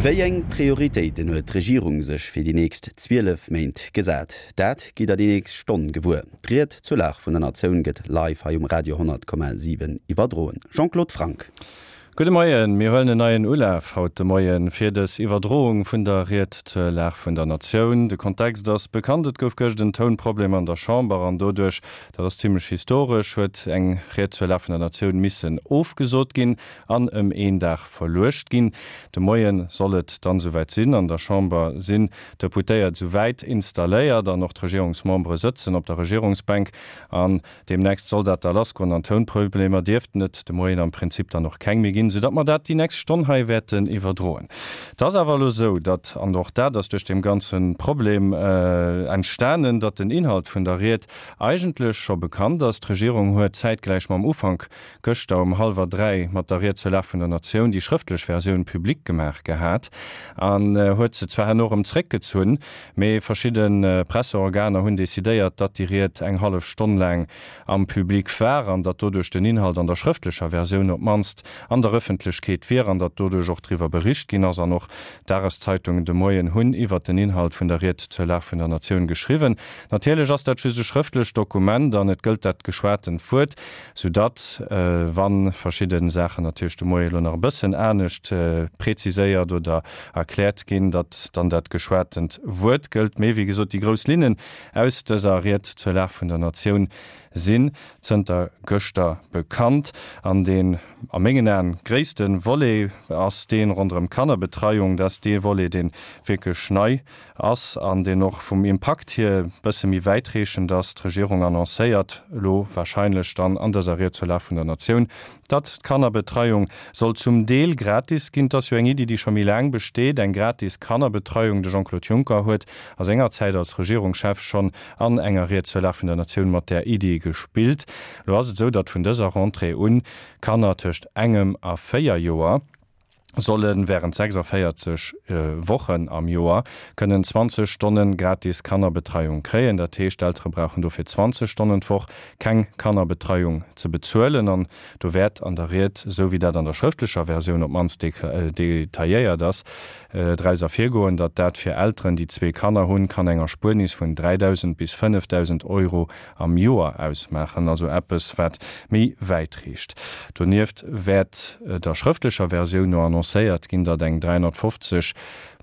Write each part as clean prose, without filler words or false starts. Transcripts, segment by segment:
Wéi eng Prioritéiten huet d'Regierung sech fir déi nächst 12 Méint gesat? Dat gitt der déi nächst Stonn gewuer. D'Ried zur Lag vun der Natioun gëtt live hei um Radio 100,7 iwwerdroen. Jean-Claude Franck. Gudde Moien, Mir huelen en neien Ulaf haut de Moien fir dës Iwwerdroung vun der Ried zur Lag vun der Natioun. De Kontext ass bekannt, Et gouf gëscht en Tounproblem an der Chamber an doduerch, dat ass zimmlech historesch, huet eng Ried zur Lag vun der Natioun missen ofgesot ginn an ëm een Dag verluecht ginn. De Moie soll et dann esouwäit sinn. An der Chamber sinn d'Deputéiert esouwäit installéiert an och d'Regierungsmembere sëtzen op der Regierungsbänk an Deemnächst soll dat da lassgoen an Tounproblemer dierften et de Moien am Prinzip dann och keng méi ginn, soudatt mer dat déi nächst Stonn hei wäerten iwwerdroen. Et ass awer elo esou, datt, an och dat ass duerch deem ganze Problem entstanen, datt den Inhalt vun der Ried eigentlech scho bekannt ass. D'Regierung huet zäitgläich mam Ufank gëschter um hallwer 3 mat der Ried zur Lag vun der Natioun déi schrëftlech Versioun public gemaach gehat an huet se zwar herno erëm zréckgezunn, Mee verschidde Presseorganer hunn decidéiert, datt déi Ried eng hallef Stonn laang am Public war an datt doduerch den Inhalt an der schrëftlecher Versioun op d'mannst an der Ëffentlechkeet wier an datt doduerch och driwwer bericht ginn ass. An och d'Dageszeitungen de Moien hunn iwwert den Inhalt vun der Ried zur Lag vun der Natioun geschriwwen. Natierlech ass dat just e schrëftlecht Dokument an et gëllt dat geschwatent Wuert. Soudatt, wa verschidde Saachen natierlech de Moie elo nach e bëssen anescht preziséiert oder erkläert ginn, datt dann dat geschwatent Wuert gëllt. Mee, wéi gesot, déi grouss Linnen aus dëser Ried zur Lag vun der Natioun sinn zënter gëschter bekannt. An deen a mengen Aen gréisste Volet ass dee ronderëm d'Kannerbetreiung. Dat ass dee Volet, dee wierklech nei ass an deen och vum Impakt hier e bësse méi wäitreechend ass. D'Regierung annoncéiert elo wahrscheinlech dann an dëser Ried zur Lag vun der Natioun, datt d'Kannerbetreiung soll zum Deel gratis ginn. Et ass jo eng Iddi, déi scho méi laang besteet, eng gratis Kannerbetreiung. De Jean-Claude Juncker huet a senger Zäit als Regierungschef schonn an enger Ried zur Lag vun der Natioun mat där Iddi gespillt. Elo ass et esou, datt vun dëser Rentrée un Kanner tëscht engem a 4 Joer, solle während 46 Wochen am Joer kënnen 20 Stonne gratis Kannerbetreiung kréien. Dat heescht, d'Eltere brauchen dofir 20 Stonnen d'Woch keng Kannerbetreiung ze bezuelen. An do wäert an der Ried, esou wéi dat an der schrëftlecher Versioun op d'mannst detailléiert ass, draus ervirgoen, datt dat fir Elteren, déi zwee Kanner hunn, kann eng Erspuernis vun 3.000 bis 5.000 Euro am Joer ausmaachen, also eppes wat méi wäit reecht. Donieft wäert der schrëftlecher Versioun no annoncéiert ginn, datt eng 350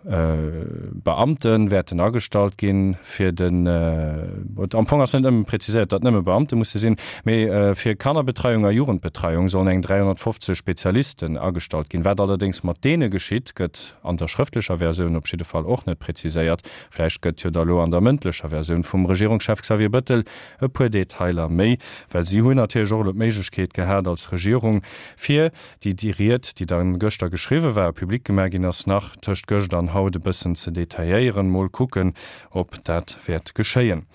Beamte wäerten agestallt ginn, fir den, am Fong ass net nëmme präziséiert, datt nëmme Beamte musse sinn, mee fir Kannerbetreiung a Jugendbetreiung sollen eng 350 Spezialisten agestallt ginn. Wat allerdéngs mat deene geschitt, gëtt an der schrëftlecher Versioun op jidde Fall och net präziséiert. Vläicht gëtt jo da lo an der mëndlecher Versioun vum Regierungschef Xavier Bëttel e puer Detailer méi, well si hunn natierlech och elo d'Méiglechkeet gehat als Regierung, fir déi déi Ried, déi dann gëschter geschriwwe war a public gemaach ginn ass, nach tëscht gëscht an haut e bëssen ze detailléieren. Mol kucken, ob dat wäert geschéien.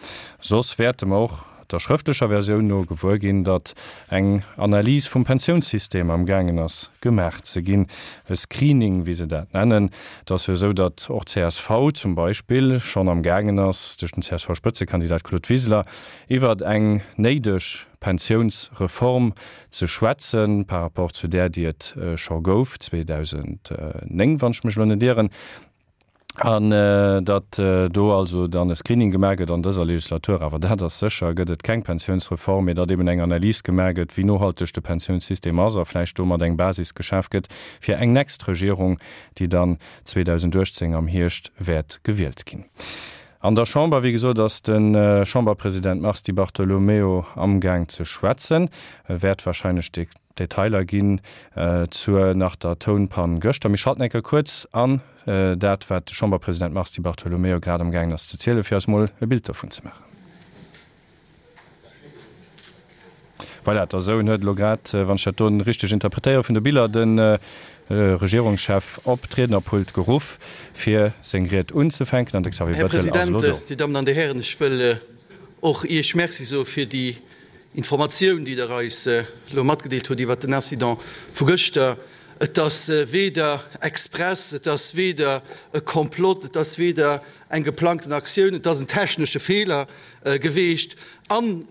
Soss wäerte mer och der schrëftlecher Versioun no gewuer ginn, datt eng Analys vum Pensiounssystem am gaangen ass gemaach ze ginn, e Screening, wéi se dat nennen. Et ass jo esou, datt och csv zum Beispill schonn am gaangen ass, duerch den CSV-Spëtzekandidat Claude Wiseler, iwwert eng néideg Pensiounsreform ze schwätzen, par rapport zu där, déi et scho gouf 2009, wann ech mech elo net ieren. An datt do also dann e Screening gemaach gëtt an dëser Legislatur, awer dat ass sécher, gëtt et keng Pensiounsreform, mee datt eben eng Analys gemaach gëtt, wéi nohalteg de Pensiounssystem ass a vläicht domat eng Basis geschaf gëtt fir eng nächst Regierung, déi dann 2018 am Hierscht wäert gewielt ginn. An der Chamber, wéi gesot, ass de Chamberpresident Mars Di Bartolomeo amgaang ze schwätzen. E wäert wahrscheinlech de. Detailer ginn zur nach der Tounpann gëschter. Mir schalten eng Kéier kuerz an dat, wat de Chamberpresident Mars Di Bartolomeo grad am gaangen ass ze zielen, fir eis mol e Bild dovun ze maachen. Voilà, der Soun huet elo grad, wann ech dat do richteg interpretéiere vun de Biller, de Regierungschef op d'Riednerpult geruff, fir seng Ried unzefänken. An de Xavier Här Bettel ass elo President, do. Dir Dammen an Dir Hären, ech wëll och Iech Merci soe fir déi Informatioun, déi Der eis elo matgedeelt hutt iwwert den Incident vu gëschter. Et ass weder express, et ass weder e Komplott, et ass weder eng geplangten Aktioun, et ass en technesche Feeler geweecht. An.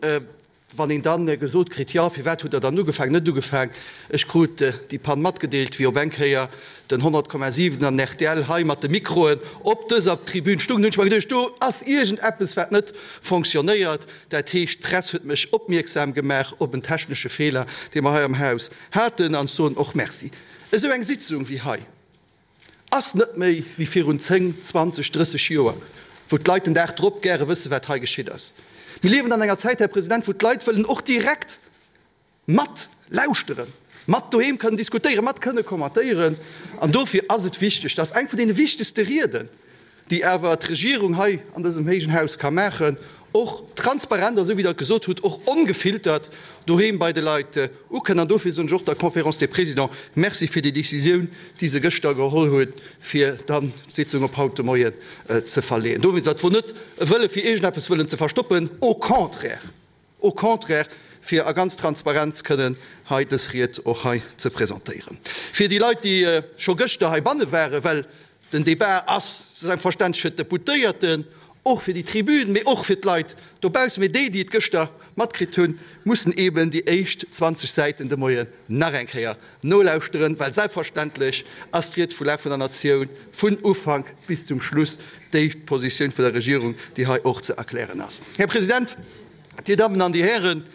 Wann een dann gesot kritt, jo, firwat hutt Der dann ugefaangen, net ugefaangen, ech krut déi Pann matgedeelt, wéi op eng Kéier den 100,7 an rtl hei mat de Mikroen op dëser Tribün stungen, hunn ech mer geduecht, do ass iergendeppes, wat net fonctionnéiert. Dat heescht, d'Press huet mech opmierksam gemaach op en technesche Feeler, dee mer hei am Haus haten, an ech soen och Merci. Esou eng Sitzung wéi hei ass net méi wéi virun 10, 20, 30 Joer, wou d'Leit den Dag drop gäre wëssen, wat hei geschitt ass. Mir liewen an enger Zäit, Här President, wou d'Leit wëllen och direkt mat lauschteren, mat doheem kënnen diskutéieren, mat kënne kommentéieren. An dofir ass et wichteg, dass eng vun deene wichtegste Rieden, déi awer d'Regierung hei an dësem héijen Haus ka maachen, och transparent a sou wéi Der et gesot hutt, och ongefiltert doheem bei de Leit ukënn. An dofir soen ech och der Conférence des Présidents Merci fir déi Décisioun, déi se gëschter geholl huet, fir dann d'Sitzung op haut de Moien ze verleeën. Dowéinst, dat wor net e Wëlle fir iergendeppes wëllen ze verstoppen, au contraire! Au contraire, fir a ganz Transparenz kënnen hei dës Ried och hei ze presentéieren. Fir déi Leit, déi scho gëschter heibanne waren, well den Débat ass selbstverständlech fir d'Deputéierten, och fir déi Tribün, mee och fir d'Leit dobaussen, mee déi, déi et gëschter matkritt hunn, mussen eeben déi éischt 20 Säiten de Moien nach eng Kéier nolauschteren, well selbstverständlech ass d'Ried vu Lag vun der Natioun vun Ufank bis zum Schluss déi Positioun vun der Regierung, déi hei och ze erklären ass. Här President, Dir Dammen an Dir Hären,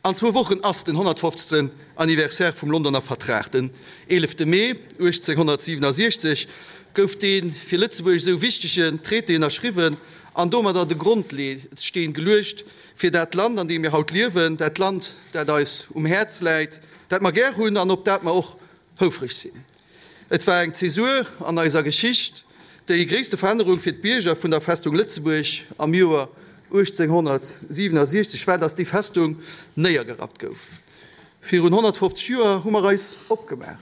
an zwou Wochen ass den 150. Anniversaire vum Londoner Vertrag. Den 11. Mee 1867 gouf dee fir Lëtzebuerg esou wichtegen Traité ënnerschriwwen an domadder de Grondsteen geluecht fir dat Land, an deem mir haut liewen, dat Land, dat eis um Häerz läit, dat mer gär hunn an op dat mer och houfreg sinn. Et war eng Zäsur an eiser Geschicht. Déi gréisste Verännerung fir d'Bierger vun der Festung Lëtzebuerg am Joer 1867 war, datt déi Festung néiergerappt gouf. Virun 150 Joer hu mer eis opgemaach.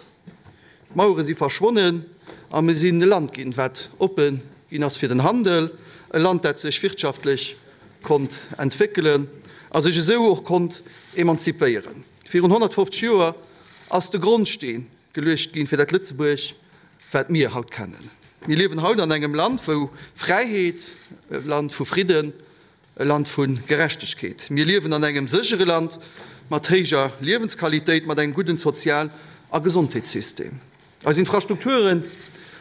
D'Mauere si verschwonnen a mir sinn e Land ginn, wat oppe ginn ass fir den Handel, e Land, dat sech wirtschaftlech konnt entwéckelen a sech esou och konnt emanzipéieren. Virun 150 Joer ass de Grondsteen geluecht ginn fir dat Lëtzebuerg, wat mir haut kennen. Mir liewen haut an engem Land, wou Fräiheet, e Land vu Fridden, e Land vu Gerechtegkeet. Mir liewen an engem séchere Land mat héijer Liewensqualitéit, mat engem gudden Sozial a Gesondheetssystem. Eis Infrastrukture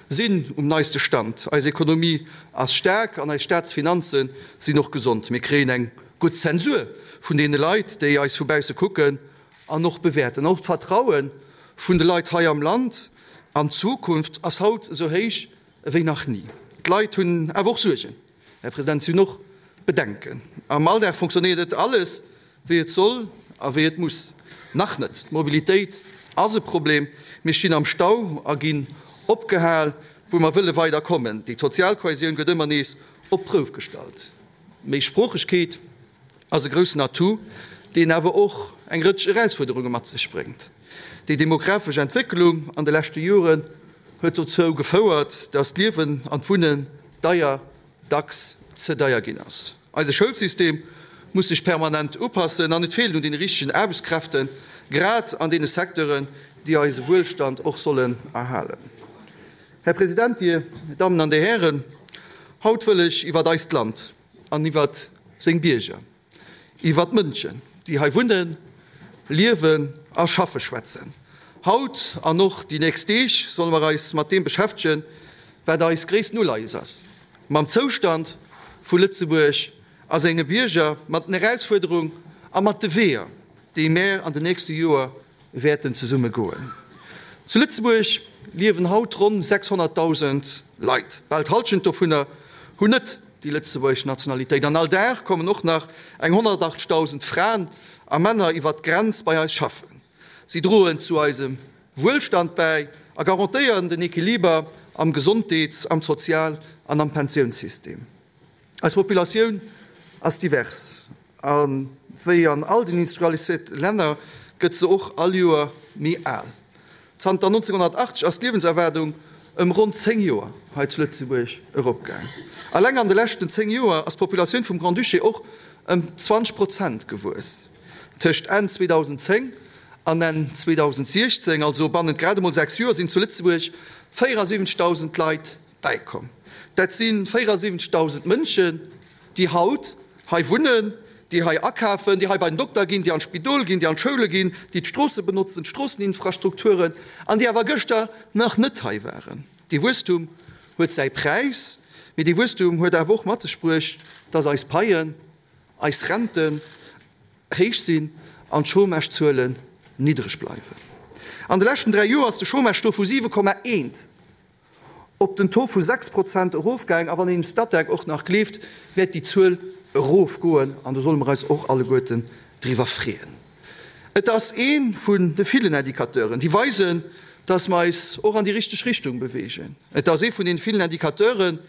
sinn um neiste Stand, eis Ekonomie ass staark an eis Staatsfinanze sinn och gesond. Mir kréien eng gutt Zensur vun deene Leit, déi eis vu bausse kucken an och bewäerten. Och d'Vertraue vun de Leit hei am Land an d'Zukunft ass haut esou héich ewéi nach ni. D'Leit hunn awer och Suergen, Här President, si hunn och Bedenken. Am Alldag fonctionnéiert net alles, wéi et soll a wéi et muss. Nach net. D'Mobilitéit ass e Problem. Mir stinn am Stau a ginn opgehal, wou mer wëlle weider kommen. Déi sozial Kohäsioun gëtt ëmmer nees op d'Prouf gestallt. Méisproochegkeet ass e groussen Atout, deen awer och eng Rëtsch Erausfuerderunge mat sech bréngt. Déi demografesch Entwécklung an de leschte Joren huet dozou gefouert, datt d'Liewen an d'Wunnen deier, dacks ze deier ginn ass. Eise Schoulsystem muss sech permanent upassen an et feelt un deene richtegen Aarbechtskräften, grad an deene Secteuren, déi eise Wuelstand och sollen erhalen. Här President, Dir Dammen an Dir Hären, haut wëll ech iwwert eist Land an iwwert seng Bierger, iwwert d'Mënschen, déi hei wunnen, liewen a schaffe schwätzen. Haut an och déi nächst Deeg solle mer eis mat deem beschäftegen, wat eis gréissten Uleies ass, mam Zoustand vu Lëtzebuerg a senge Bierger, mat den Erausfuerderung a mat de Weeër, déi mär an den nächste Joer wäerten zesumme goen. Zu Lëtzebuerg liewen haut ronn 600.000 Leit. Bal d'Hallschent dovunner hunn net déi lëtzebuergesch Nationalitéit. An all Dag kommen och nach eng 180.000 Fraen a Männer iwwert d'Grenz bei eis schaffen. Si droen zu eisem Wuelstand bäi a garantéieren den Equiliber am Gesondheets-, am Sozial an am Pensiounssystem. Eis Populatioun ass divers a wéi an all den industrialiséierte Länner gëtt se och all Joer méi al. Zanter 1980 ass d'Liewenserwaardung ëm ronn 10 Joer hei zu Lëtzebuerg eropgaang. Alleng an de leschten 10 Joer ass d'Populatioun vum Grand-Duché och ëm 20 Prozent gewuess. Tëscht Enn 2010 an Enn 2016, also bannent grad emol 6 Joer, sinn zu Lëtzebuerg 74.000 Leit bäikomm. Dat si 74.000 Mënschen, déi haut hei wunnen, déi hei akafen, déi hei bei den Dokter ginn, déi an d'Spidol ginn, déi an d'Schoule ginn, déi d'Stroosse benotzen, d'Stroosseninfrastrukturen, an déi awer gëschter nach net hei waren. Dee Wuesstum huet säi Präis, mee dee Wuesstum huet awer och mat sech bruecht, dass eis Paien, eis Renten héich sinn an d'Chômagezuelen niddreg bleiwen. An de leschten 3 Joer ass de Chômage-Taux vu 7,1 op den Taux vu 6 Prozent erofgaang. A wann een dem Statec och nach gleeft, wäert déi Zuel erofgoen an do solle mer eis och alleguerten driwwer freeën. Et ass ee vun de villen Indicateuren, déi weisen, dass mer eis och an déi richteg Richtung beweegen. Et ass ee vun deene villen Indicateuren,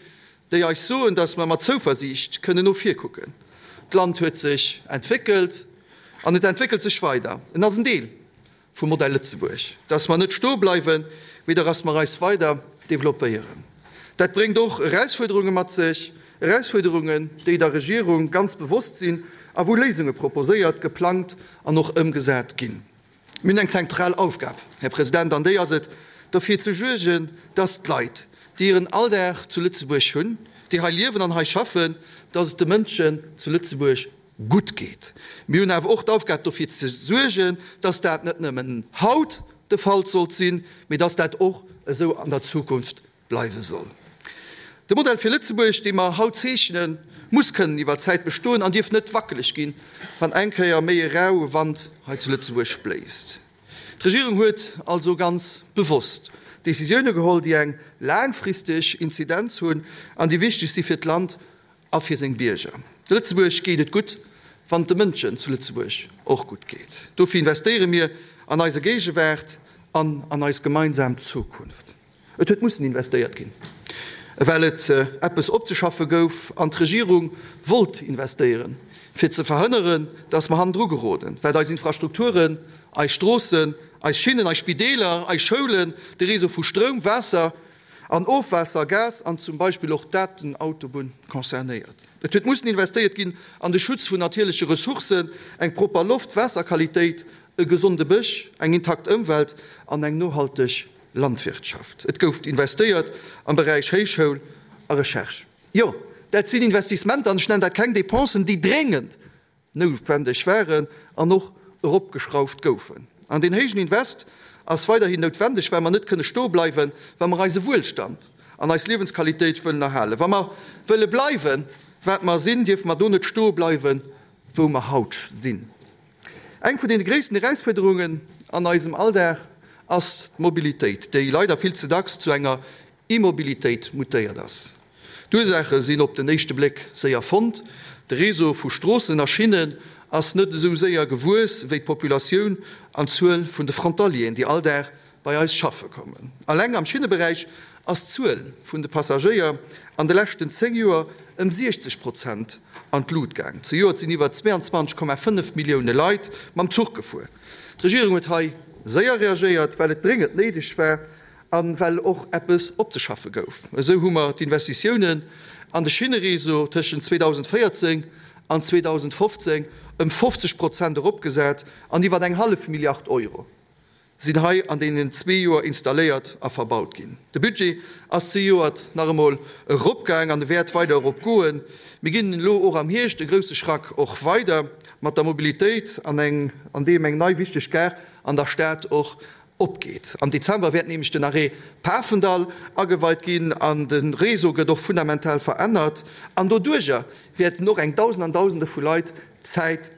déi eis soen, dass mer mat Zouversiicht kënnen no vir kucken. D'Land huet sech entwéckelt an et entwéckelt sech weider. En ass en Deel vum Modell Lëtzebuerg, dass mer net stoe bleiwen, mee dass mer eis weider developpéieren. Dat bréngt och Erausfuerderunge mat sech, Erausfuerderungen, déi der Regierung ganz bewosst sinn a wou Léisunge proposéiert, geplangt an och ëmgesat ginn. Mir hunn eng zentral Aufgab, Här President, an déi ass et, derfir ze suergen, dass d'Leit, déi hiren Alldag zu Lëtzebuerg hunn, déi hei liewen an hei schaffen, dass et de Mënschen zu Lëtzebuerg gutt geet. Mir hunn awer och d'Aufgab, dofir ze suergen, dass dat net nëmmen haut de Fall sollt sinn, mee dass dat och esou an der Zukunft bleiwe soll. De Modell fir Lëtzebuerg, dee mer haut zeechnen, muss kënnen iwwer d'Zäit bestoen an dierf net wackeleg ginn, wann eng Kéier méi e raue Wand hei zu Lëtzebuerg bléist. D'Regierung huet also ganz bewosst Décisioune geholl, déi eng laangfristeg Inzidenz hunn an déi wichteg si fir d'Land a fir seng Bierger. Lëtzebuerg geet et gutt, wann et de Mënschen zu Lëtzebuerg och gutt geet. Dofir investéiere mir an eise Géigewaart an an eis gemeinsam Zukunft. Et huet mussen investéiert ginn, well et eppes opzeschaffe gouf an d'Regierung wollt investéieren, fir ze verhënneren, dass mer hannendru geroden, wat eis Infrastrukturen, eis Stroossen, eis Schinnen, eis Spideeler, eis Schoulen, de Réseau vu Stroum, Waasser an Ofwaasser, Gas an zum Beispill och d'Datenautobunn concernéiert. Et huet mussen investéiert ginn an de Schutz vun natierleche Ressourcen, eng propper Loft, Waasserqualitéit, e gesonde Bësch, eng intakt Ëmwelt an eng nohalteg Landwirtschaft. Et gouf investéiert am Beräich Héichschoul a Recherche. Jo, dat sinn Investissementer, an ech nennen dat keng Dépensen, déi dréngend noutwendeg waren an och eropgeschrauft goufen. An deen héijen Invest ass weiderhin noutwendeg, well mer net kënne stoe bleiwen, wa mer eise Wuelstand an eis Liewensqualitéit wëllen erhalen. Wa mer wëlle bleiwen, wat mer sinn, dierfe mer do net stoe bleiwen, wou mer haut sinn. Eng vun deene gréissten Erausfuerderungen an eisem Alldag ass d'Mobilitéit, déi leider vill ze dacks zu enger Immobilitéit mutéiert ass. D'Ursaache sinn op den éischte Bléck séier fonnt, De Réseau vu Stroossen a Schinnen ass net esou séier gewuess wéi d'Populatioun an d'Zuel vun de Frontalieren, déi all Dag bei eis schaffe kommen. Alleng am Schinneberäich ass d'Zuel vun de Passagéier an de leschten 10 Joer ëm 60 Prozent an d'Lut gaang. Zejoert sinn iwwer 22,5 Millioune Leit mam Zuch gefuer. D'Regierung huet hei séier reagéiert, well et dréngend néideg war a well och eppes opzeschaffe gouf. Esou hu mer d'Investitiounen an de Schinnereseau tëschent 2014 an 2015 ëm 50 Prozent eropgesat an iwwer eng hallef Milliard Euro sinn hei an deenen zwee Joer installéiert a verbaut ginn. De Budget ass zejoert nach emol eropgaang an e wäert weider eropgoen. Mir ginn elo och am Hierscht e grousse Schrack och weider mat der Mobilitéit an eng an deem eng nei wichteg Gare an der Stad och opgeet. Am Dezember wäert nämlech den Arrêt Pafendall ageweit ginn an de Réseau gëtt och fundamental verännert an doduerjer wäerten och eng Dausend an Dausende vu Leit Zäit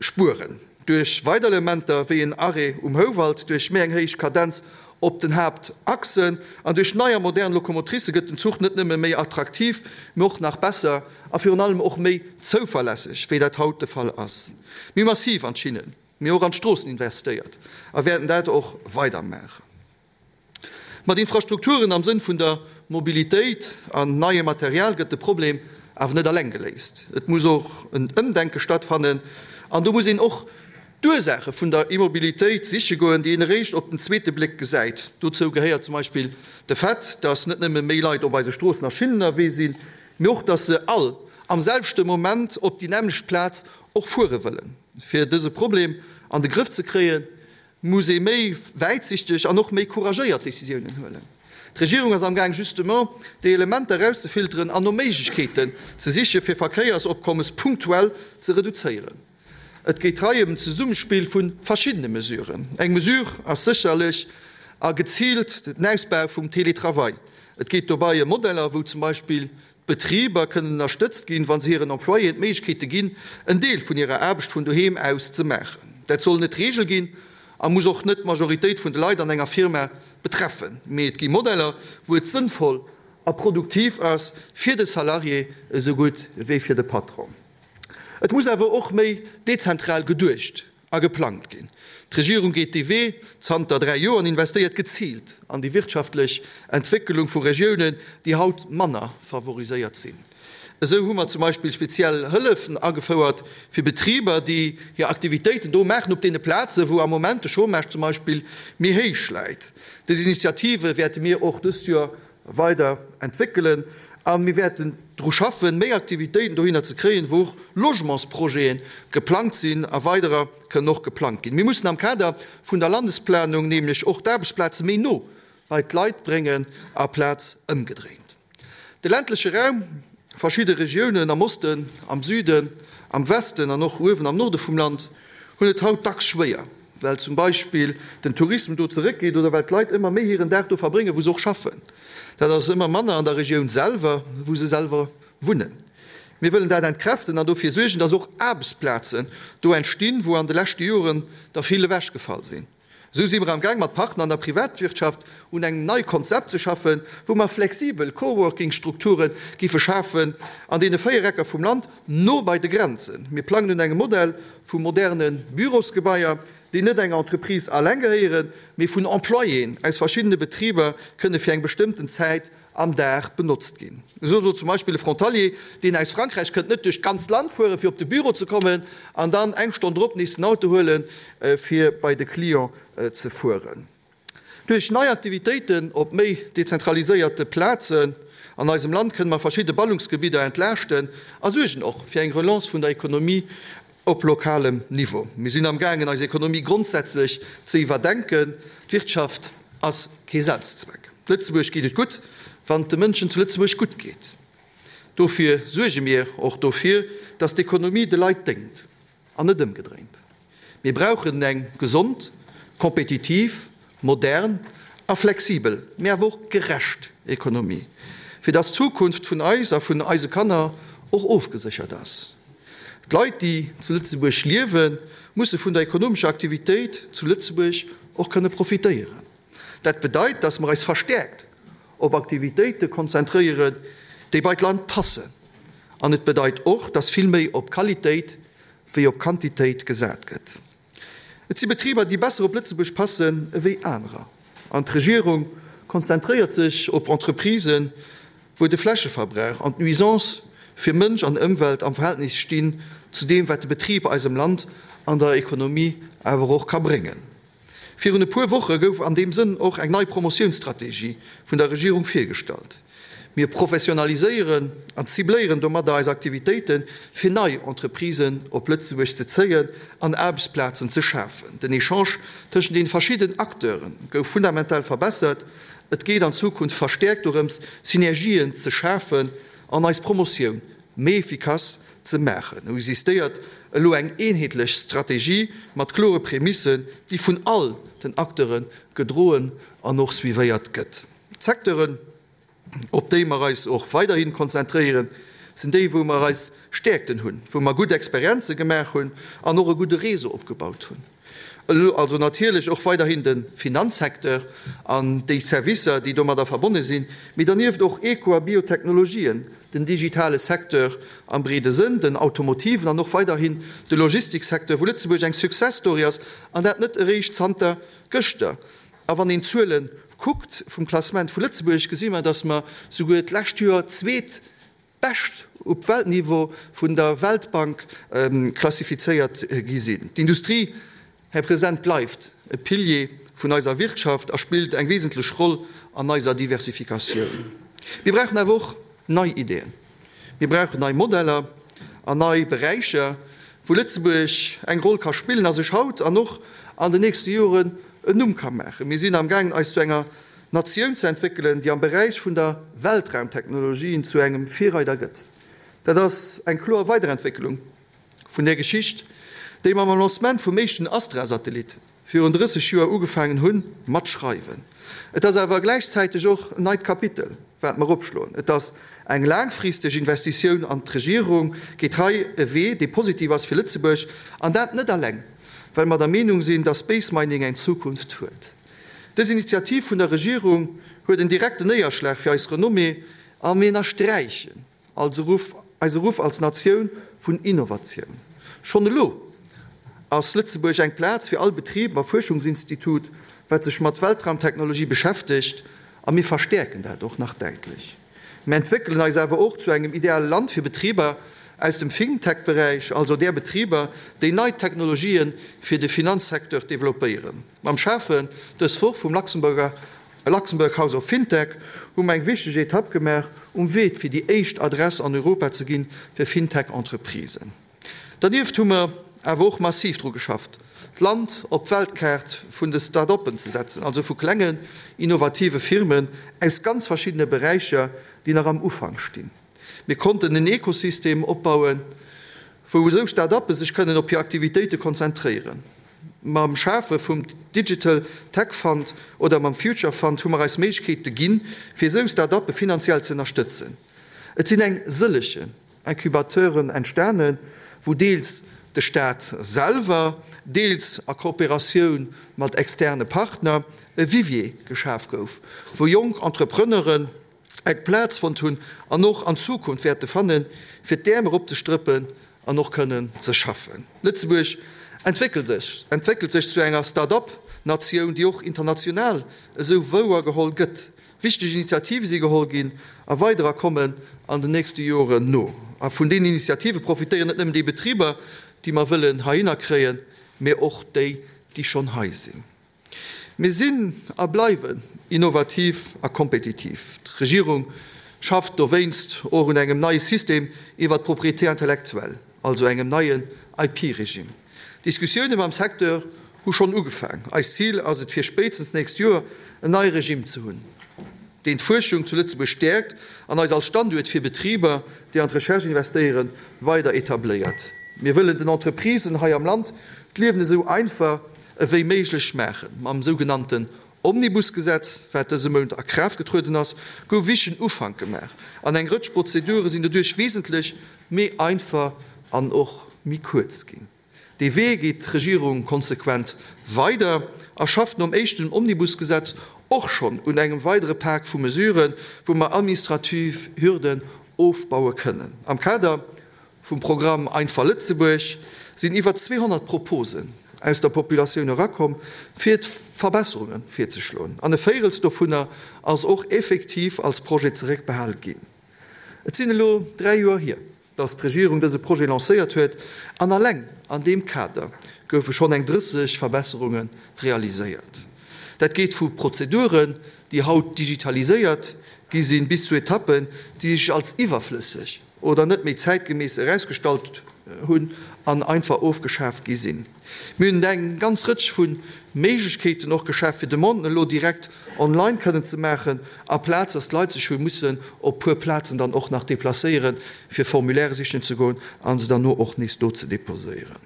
Spueren. Duerch weider Elementer wéi en Arrêt um Houwald, duerch méi eng héich Kadenz op den Haaptachsen an duerch nei a modern Lokomotricë gëtt den Zuch net nëmme méi attraktiv, mee och nach besser a virun allem och méi zouverlässeg, wéi dat haut de Fall ass. Mir hu massiv an d'Schinnen, mee och an d'Stroossen investéiert a wäerten dat och weider maachen. Mat Infrastrukturen am Sënn vun der Mobilitéit an neiem Material gëtt de Problem awer net alleng geléist. Et muss och en Ëmdenke stattfannen an do muss een och d'Ursaache vun der Immobilitéit siche goen, déi een eréischt op den zweete Bléck gesäit. Dozou gehéiert zum Beispill de Fait, dass net nëmme méi Leit op eise Stroossen a Schinnen ënnerwee sinn, mee och, dass se all am selwechte Moment op déi nämmlecht Plaz och fuere wëllen. Fir dëse Problem an de Grëff ze kréien, muss ee méi wäitsichteg an och méi couragéiert Décisiounen huelen. D'Regierung ass amgaang justement déi Elementer erauszefilteren an no Méiglechkeeten ze siche fir Verkéiersopkommes punktuell ze reduzéieren. Et geet hei ëm en Zesummespill vu verschiddene Mesuren. Eng Mesure ass sécherlech a geziilt den Ausbau vum Télétravail. Et geet dobei ëm Modeller, wou zum Beispill d'Betriber kënnen ënnerstëtzt ginn, wa se hiren Employéen d'Méiglechkeete ginn, en Deel vun hirer Aarbecht vun doheem aus ze maachen. Dat soll net d'Reegel ginn a muss och net d'Majoritéit vun de Leit an enger Firma betreffen. Mee et gi Modeller, wou et sënnvoll a produktiv ass fir de Salarié esou gutt wéi fir de Patron. Et muss awer och méi dezentral geduecht a geplangt ginn. D'Regierung geet dee Wee zanter 3 Joer an investéiert geziilt an déi wirtschaftlech Entwéckelung vu Regiounen, déi haut manner favoriséiert sinn. Esou hu mer zum Beispill speziell Hëllefen agefouert fir Betriber, déi hir Aktivitéiten do maachen, op deene Plazen, wou am Moment de Chômage zum Beispill méi héich läit. Dës Initiative wäerte mir och dëst Joer weider entwéckelen a mir wäerten dru schaffen, méi Aktivitéiten dohinner ze kréien, wou och Logementsprojete geplangt sinn a weiderer kënnen och geplangt ginn. Mir mussen am Kader vun der Landesplanung nämlech och d'Aarbechtsplaze méi no bei d'Leit bréngen aplaz ëmgedréint. De ländleche Raum, verschidde Regiounen am Osten, am Süden, am Westen an och uewen am Norde vum Land hunn et haut dacks schwéier, well zum Beispill den Tourisme do zeréckgeet oder well d'Leit ëmmer méi hiren Dag do verbréngen, wou se och schaffen. Dat ass ëmmer manner an der Regioun selwer, wou se selwer wunnen. Mir wëllen dat entkräften an dofir suergen, dass och Aarbechtsplazen do entstinn, wou an de leschte Joren der vill ewechgefall sinn. Esou si mer am Gaang mat Partner an der Privatwirtschaft un engem neie Konzept ze schaffen, wou mer flexibel Coworking-Strukture giffe schafen an deene 4 Ecker vum Land, no bei de Grenzen. Mir plangen un engem Modell vu moderne Bürosgebaier, déi net enger Entreprise alleng gehéieren, mee vun Employéen aus verschiddene Betriber kënne fir eng bestëmmten Zäit am Dag benotzt ginn. Esou soll zum Beispill e Frontalier, deen aus Frankräich kënnt, net duerch d'ganzt Land fueren, fir op de Büro ze kommen, an dann eng Stonn drop nees den Auto huelen, fir bei de Client ze fueren. Duerch nei Aktivitéiten op méi dezentraliséierte Plazen an eisem Land kënne mer verschidde Ballungsgebidder entlaaschten a suergen och fir eng Relance vun der Ekonomie op lokalem Niveau. Mir sinn amgaangen, eis Ekonomie grondsätzlech ze iwwerdenken. D'Wirtschaft ass kee Selbstzweck. Lëtzebuerg geet et gutt, wann et de Mënschen zu Lëtzebuerg gutt geet. Dofir suerge mir och dofir, dass d'Ekonomie de Leit déngt an net ëmgedréint. Mir brauchen eng gesond, kompetitiv, modern a flexibel, mee awer och gerecht Ekonomie, fir dass d'Zukunft vun eis a vun eise Kanner och ofgeséchert ass. D'Leit, déi zu Lëtzebuerg liewen, musse vun der ekonomescher Aktivitéit zu Lëtzebuerg och kënne profitéieren. Dat bedeit, dass mer eis verstäerkt op Aktivitéite konzentréieren, déi bei d'Land passen. An et bedeit och, dass vill méi op Qualitéit wéi op Quantitéit gesat gëtt. Et si Betriber, déi besser op Lëtzebuerg passen ewéi anerer. An d'Regierung konzentréiert sech op Entreprisen, wou de Flächeverbrauch an d'Nuisance fir Mënsch an Ëmwelt am Verhältnis stinn zu deem, wat de Betrib eisem Land an der Ekonomie awer och ka bréngen. Virun e puer Woche gouf an deem Sënn och eng nei Promotiounsstrategie vun der Regierung virgestallt. Mir professionaliséieren an cibléieren domadder eis Aktivitéiten, fir nei Entreprisen op Lëtzebuerg ze zéien an Aarbechtsplazen ze schafen. Den Echange tëschent den verschidden Acteure gouf fundamental verbessert. Et geet an Zukunft verstäerkt dorëms, Synergien ze schafen an eis Promotioun méi efficace ze maachen. Et existéiert elo eng eenheetlech Strategie mat klore Prämissen, déi vun all den Acteure gedroen an och suivéiert gëtt. D'Secteuren, op déi mer eis och weiderhi konzentréieren, sinn déi, wou mer eis Stäerkten hunn, wou mer gutt Experienze gemaach hunn an och e gudde Réseau opgebaut hunn. Elo also natierlech och weiderhin de Finanzsecteur an déi Servicer, déi domadder verbonne sinn, mee dernieft och Eko a Biotechnologien, den digitale Secteur am breede Sënn, den automotiven an och weiderhin de Logistiksecteur, wou Lëtzebuerg eng Success Story ass, an dat net eréischt zanter gëschter. A wann een d'Zuele kuckt vum Klassement vu Lëtzebuerg, gesi mer, datt mer souguer d'lescht Joer zweet bescht op Weltniveau vun der Weltbank klassifizéiert gi sinn. D'Industrie, Här President, bleift e Pilier vun eiser Wirtschaft a spillt eng wesentlech Roll an eiser Diversifikatioun. Mir brauchen awer och nei Ideeën. Mir brauchen nei Modeller an nei Beräicher, wou Lëtzebuerg eng Roll ka spillen a sech haut an och an den nächste Joren en Numm ka maachen. Mir sinn amgaangen, eis zu enger. Natioun ze entwéckelen, déi am Beräich vun der Weltraumtechnologien zu engem Virreider gëtt. Dat ass eng kloer Weiderentwécklung vun där Geschicht, déi mer mam Lancement vum éischten Astra-Satellit virun 30 Joer ugefaangen hunn mat schreiwen. Et ass awer gläichzäiteg och en neit Kapitel, wat mer opschloen. Et ass eng laangfristeg Investitioun an d'Regierung geet hei e Wee, dee positiv ass fir Lëtzebuerg, an dat net alleng, well mer der Meenung sinn, dass Space Mining eng Zukunft huet. Dës Initiativ vun der Regierung huet en direkten Néierschlag fir eis Renommée a mir ënnersträichen eise Ruff, eise Ruff als Natioun vun Innovatioun. Schonn elo ass Lëtzebuerg eng Plaz fir all Betrib a Fuerschungsinstitut, wat sech mat Weltraumtechnologie beschäftegt, a mir verstäerken dat och nach däitlech. Mir entwéckelen eis awer och zu engem ideale Land fir Betriber aus dem Fintech-Beräich, also där Betriber, déi nei Technologië fir de Finanzsecteur developpéieren. Mam Schafen dës Woch vum Luxemburger Luxembourg House of Fintech hu mer eng wichteg Etapp gemaach um Wee fir déi éischt Adress an Europa ze ginn fir Fintech-Entreprisen. Dernieft hu mer awer och massiv dru geschafft, d'Land op d'Weltkaart vun de Start-uppen ze setzen, also vu klengen, innovative Firmen aus ganz verschiddene Beräicher, déi nach am Ufank stinn. Mir konnten en Ekosystem opbauen, wou esou Start-uppe sech kënnen op hir Aktivitéite konzentréieren. Mam Schafe vum Digital Tech Fund oder mam Future Fund hu mer eis Méiglechkeete ginn, fir esou Start-uppe finanziell ze ënnerstëtzen. Et sinn eng sëllegen Incubateuren entstanen, wou deels de Staat selwer, deels a Kooperatioun mat externe Partner e Vivier geschaf gouf, wou jonk Entrepreneuren eng Plaz fonnt hunn an och an Zukunft wäerte fannen, fir d'Äerm eropzestrëppen an och kënnen ze schaffen. Lëtzebuerg entwéckelt sech, entwéckelt sech zu enger Start-up-Natioun, déi och international esou wouergeholl gëtt. Wichteg Initiative si geholl ginn a weiderer kommen an den nächste Joren no. A vun deenen Initiative profitéieren net nëmmen déi Betriber, déi mer wëllen heihinner kréien, mä och déi, déi schonn hei sinn. Mir sinn a bleiwen innovativ a kompetitiv. D'Regierung schafft dowéinst och un engem neie System iwwert d'Propriété intellectuelle, also engem neien IP-Regime. D'Diskussioune mam Secteur hu schonn ugefaang. Eist Zil ass et fir spéitstens d'nächst Joer en neie Regime ze hunn, deen d'Fuerschung zu Lëtzebuerg stäerkt an eis als Standuert fir Betriber, déi an d'Recherche investéieren, weider etabléiert. Mir wëllen den Entreprisen hei am Land d'Liewen esou einfach ewéi méiglech maachen. Mam sougenannten Omnibusgesetz, wat dëse Mount a Kraaft getrueden ass, gouf wichtegen Ufank gemaach an eng Rëtsch Prozedure sinn doduerch wesentlech méi einfach an och méi kuerz ginn. Dee Wee geet d'Regierung konsequent weider a schafft nom éischten Omnibusgesetz och schonn un engem weidere Pak vu Mesuren, wou mer administrativ Hürden ofbaue kënnen. Am Kader vum Programm Einfach Lëtzebuerg sinn iwwer 200 Proposen aus der Populatioun erakomm, fir Verbesserunge virzeschloen, an e Véirels dovunner ass och effektiv als Projet zeréckbehal ginn. Et sinn elo 3 Joer hier, dass d'Regierung dëse Projet lancéiert huet, an alleng an deem Kader goufe schonn eng 30 Verbesserunge realiséiert. Dat geet vu Prozeduren, déi haut digitaliséiert gi sinn, bis zu Etappen, déi sech als iwwerflësseg oder net méi zäitgemäss erausgestallt hunn an einfach ofgeschaaft gi sinn. Mir hunn eng ganz Rëtsch vu Méiglechkeeten och geschaf, fir Demanden elo direkt online kënnen ze maachen, aplaz dass d'Leit sech hu mussen op puer Plazen dann och nach deplacéieren, fir Formulaire sichen ze goen a se dann no och nees do ze deposéieren.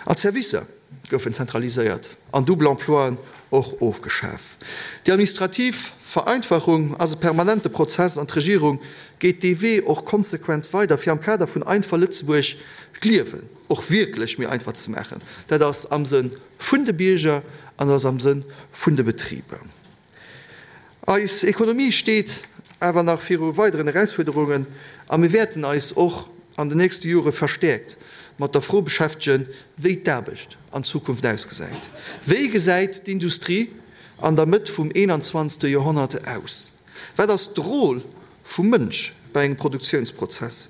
An d'Servicer goufen zentraliséiert an double Emploien och ofgeschaf. Déi administrativ Vereinfachung ass e permanente Prozess an d'Regierung geet dee Wee och konsequent weider, fir am Kader vun Einfach Lëtzebuerg d'Liewen och wierklech méi einfach ze maachen. Dat ass am Sënn vun de Bierger an dat ass am Sënn vun de Betriber. Eis Ekonomie steet awer nach viru weideren Erausfuerderungen a mir wäerten eis och an den nächste Jore verstäerkt mat der Fro beschäftegen, wéi d'Aarbecht an Zukunft ausgesäit. Wéi gesäit d'Industrie an der Mëtt vum 21. Joerhonnert aus? Wat ass d'Rôle vum Mënsch bei engem Produktiounsprozess?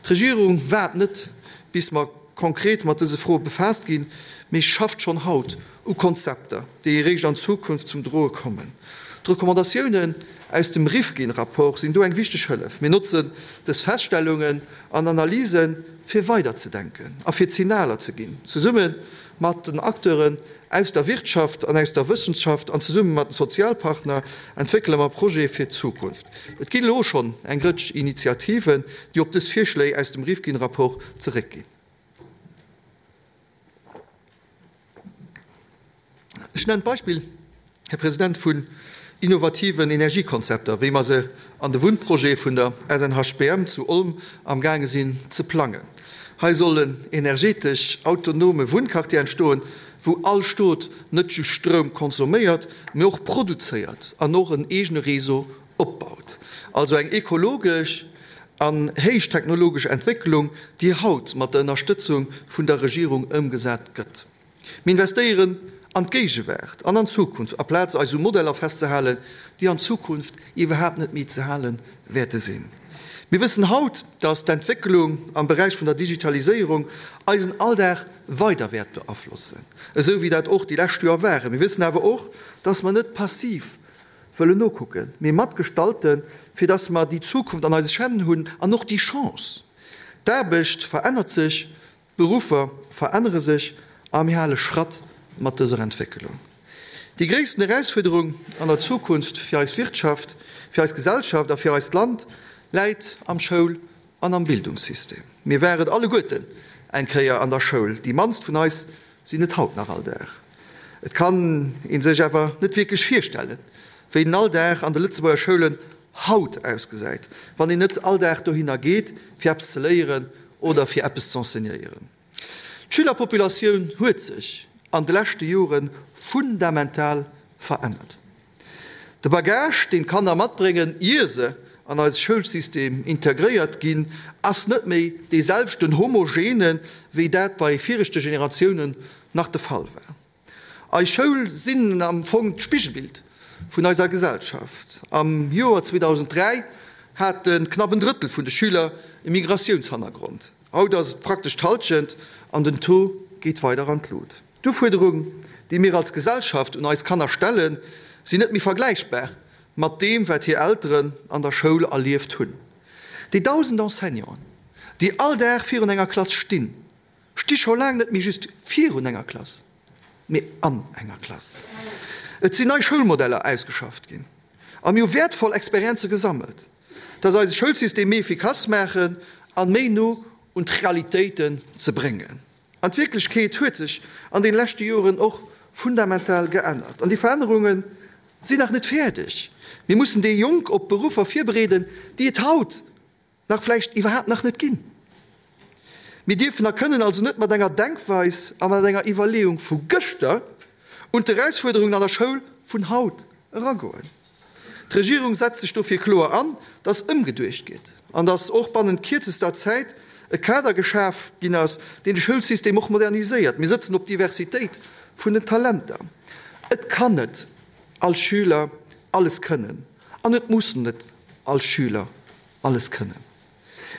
D'Regierung waart net, bis mer konkret mat dëse Froe befaasst ginn, mee schafft schonn haut u Konzepter, déi eréischt an Zukunft zum Droe kommen. D'Recommandatiounen aus dem Rifkin-Rapport sinn do eng wichteg Hëllef. Mir notzen dës Feststellungen an Analysen, fir weiderzedenken a fir Signaler ze ginn, zesumme mat den Acteuren aus der Wirtschaft an aus der Wëssenschaft an zesumme mat den Sozialpartner entwéckele mer Projete fir d'Zukunft. Et ginn elo schonn eng Rëtsch Initiativen, déi op dës Virschléi aus dem Rifkin-Rapport zeréckginn. Ech nennen d'Beispill, Här President, vun innovativen Energiekonzepter, wéi mer se an de Wunnprojete vun der SNHBM zu Olm amgaange sinn ze plangen. Hei soll en energetesch autonome Wunnquartier entstoen, wou all Stot net just Stroum consomméiert, mee och produzéiert an och en eegene Réseau opbaut. Also eng ekologesch an héichtechnologesch Entwécklung, déi haut mat der Ënnerstëtzung vun der Regierung ëmgesat gëtt. Mir investéieren an d'Géigewaart an an d'Zukunft, aplaz eis u Modeller festzehalen, déi an Zukunft iwwerhaapt net méi ze hale wäerte sinn. Mir wëssen haut, dass d'Entwécklung am Beräich vun der Digitaliséierung eisen Alldag weider wäert beaflossen, esou wéi dat och déi lescht Joer waren. Mir wëssen awer och, dass mer net passiv wëllen nokucken, mee matgestalten, fir dass mer déi Zukunft an eise Hänn hunn an och déi Chance. D'Aarbecht verännert sech, D'Beruffer verännere sech a mir hale Schratt mat dëser Entwécklung. Déi gréissten Erausfuerderung an der Zukunft fir eis Wirtschaft, fir eis Gesellschaft a fir eist Land läit am Schoul an am Bildungssystem. Mir waren alleguerten eng Kéier an der Schoul, déi mannst vun eis sinn et haut nach all Dag. Et kann ee sech awer net wierklech virstellen, wéi den Alldag an de Lëtzebuerger Schoulen haut ausgesäit, wann een net all Dag dohinner geet, fir eppes ze léieren oder fir eppes z'enseignéieren. D'Schülerpopulatioun huet sech an de leschte Jore fundamental verännert. De Bagage, deen d'Kanner matbréngen, ier se an eise Schoulsystem integréiert ginn, ass net méi dee selwechten homogene wéi dat bei viregte Generatiounen nach de Fall war. Eis Schoul sinn am Fong d'Spigelbild vun eiser Gesellschaft. Am Joer 2003 hate knapp en Drëttel vun de Schüler e Migratiounshannergrond. Haut ass et praktesch d'Hallschent an den Taux geet weider an d'Lut. D'Ufuerderung, déi mir als Gesellschaft un eis Kanner stellen, sinn net méi vergläichbar mat deem, wat hir Elteren an der Schoul erlieft hunn. Déi 1.000 Enseignanten, déi all Dag virun enger Klass stinn, Sti scho laang net méi just virun enger Klass, mee an enger Klass. Et sinn nei Schoulmodeller ausgeschafft ginn a mir hu wäertvoll Experienze gesammelt, dass eise Schoulsystem méi efficace maachen an méi no un d'Realitéiten ze bréngen. An d'Wierklechkeet huet sech an deene leschte Joren och fundamental geännert an déi Verännerunge sinn nach net fäerdeg. Mir mussen déi Jonk op Beruffer virbereeden, déi et haut nach vläicht iwwerhaapt nach net ginn. Mir dierfen a kënnen also net mat enger Denkweis a mat enger Iwwerleeung vu gëschter un d'Erausfuerderungen an der Schoul vun haut eragoen. D'Regierung setzt sech dofir kloer an, dass ëmgeduecht gétt an dass och bannent kierzester Zäit e Kader geschaf ginn ass, deen de Schoulsystem och moderniséiert. Mir sëtzen op d'Diversitéit vun den Talenter. Et kann net all Schüler alles kënnen an et muss net all Schüler alles kënnen.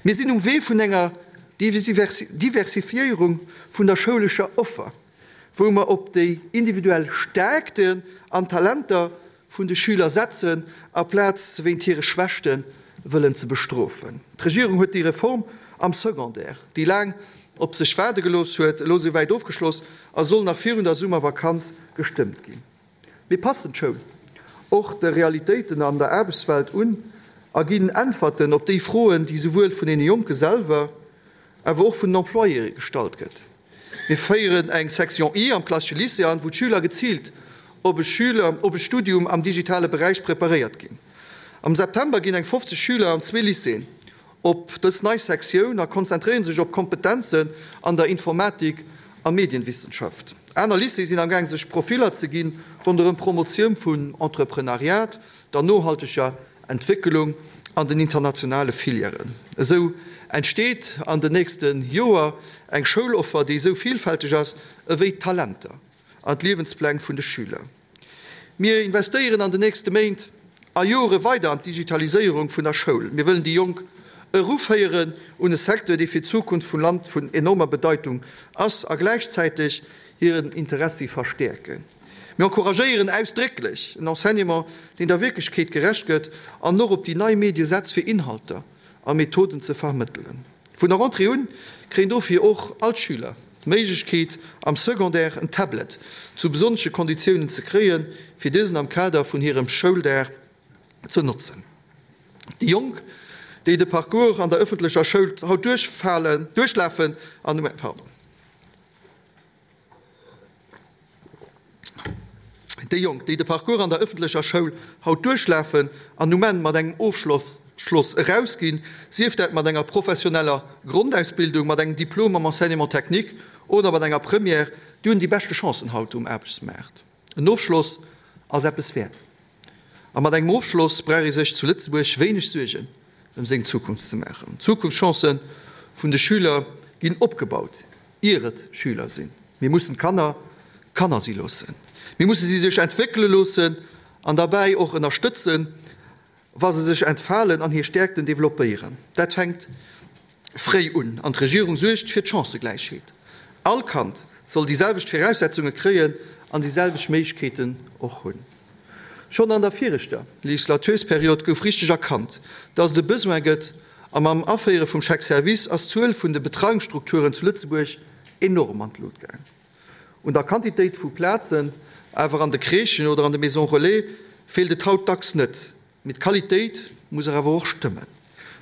Mir sinn um Wee vun enger Diversifiéierung vun der schoulescher Offer, wou mer op déi individuell Stärkten an Talenter vun de Schüler setzen, aplaz se wéint hire Schwächte wëllen ze bestrofen. D'Regierung huet déi Reform am Secondaire, déi laang op sech waarde gelooss huet, elo souwäit ofgeschloss a soll nach virun der Summervakanz gestëmmt ginn. Mir passen d'Schoul och de Realitéiten an der Aarbechtswelt un a ginn Äntwerten op déi Froen, déi souwuel vun deene Jonke selwer, awer och vun den Employéë gestallt gëtt. Mir féieren eng Section I am klassesche Lycée an, wou d'Schüler geziilt op e Schüler op e Studium am digitale Beräich preparéiert ginn. Am September ginn eng 50 Schüler an zwee Lycéeën op dës nei Sektioun a konzentréiere sech op Kompetenzen an der Informatik a Medienwissenschaft. Aner Lycéeë sinn amgaang sech Profiller ze ginn ronderëm d'Promotioun vun Entreprenariat, der nohalteger Entwécklung an den internationale Filièren. Esou entsteet an den nächste Joer eng Schouloffer, déi esou villfälteg ass ewéi d'Talenter an d'Liewenspläng vun de Schüler. Mir investéieren an den nächste Méint a Jore weider an d'Digitaliséierung vun der Schoul. Mir wëllen déi Jonk eruféieren un e Secteur, dee fir d'Zukunft vum Land vun enormer Bedeitung ass, a gläichzäiteg hiren Interessi verstäerken. Mir encouragéieren ausdrécklech en Enseignement, deen der Wierklechkeet gerecht gëtt an och op déi nei Medie setzt, fir Inhalter a Methoden ze vermëttelen. Vun der Rentrée un kréien dofir och all d'Schüler d'Méiglechkeet, am Secondaire en Tablet zu besonnesche Konditiounen ze kréien, fir dësen am Kader vun hirem Schouldag ze notzen. Déi Jonk, déi de Parcours an der ëffentlecher Schoul haut duerchfalen, duerchlafen an, pardon. Déi Jonk, déi de Parcours an der ëffentlecher Schoul haut duerchlafen an um Enn mat engem Ofschloss erausginn, sief dat mat enger professioneller Grondausbildung, mat engem Diplom am Enseignement technique oder mat enger Première, déi hunn déi beschte Chancen haut um Aarbechtsmaart. En Ofschloss ass eppes wäert. A mat engem Ofschloss brauch ee sech zu Lëtzebuerg wéineg Suergen ëm seng Zukunft ze maachen. D'Zukunftschancë vun de Schüler ginn opgebaut, ier et Schüler sinn. Mir mussen d'Kanner Kanner si loossen. Mir musse si sech entwéckele loossen an derbäi och ënnerstëtzen, wa se sech entfalen an hir Stäerkten developpéieren. Dat fänkt fréi un an d'Regierung suergt fir d'Chancëgläichheet. All Kand soll déi selwecht Viraussetzunge kréien an déi selwecht Méiglechkeeten och hunn. Schonn an der viregter Legislatursperiod gouf richteg erkannt, dass et e Besoin gëtt a mam Aféiere vum Chèque service ass d'Zuel vun de Betreiungsstrukturen zu Lëtzebuerg enorm an d'Lut gaang. Un der Quantitéit vu Plazen awer an de Crèchen oder an de Maisons relais feelt et haut dacks net. Mee d'Qualitéit muss awer och stëmmen.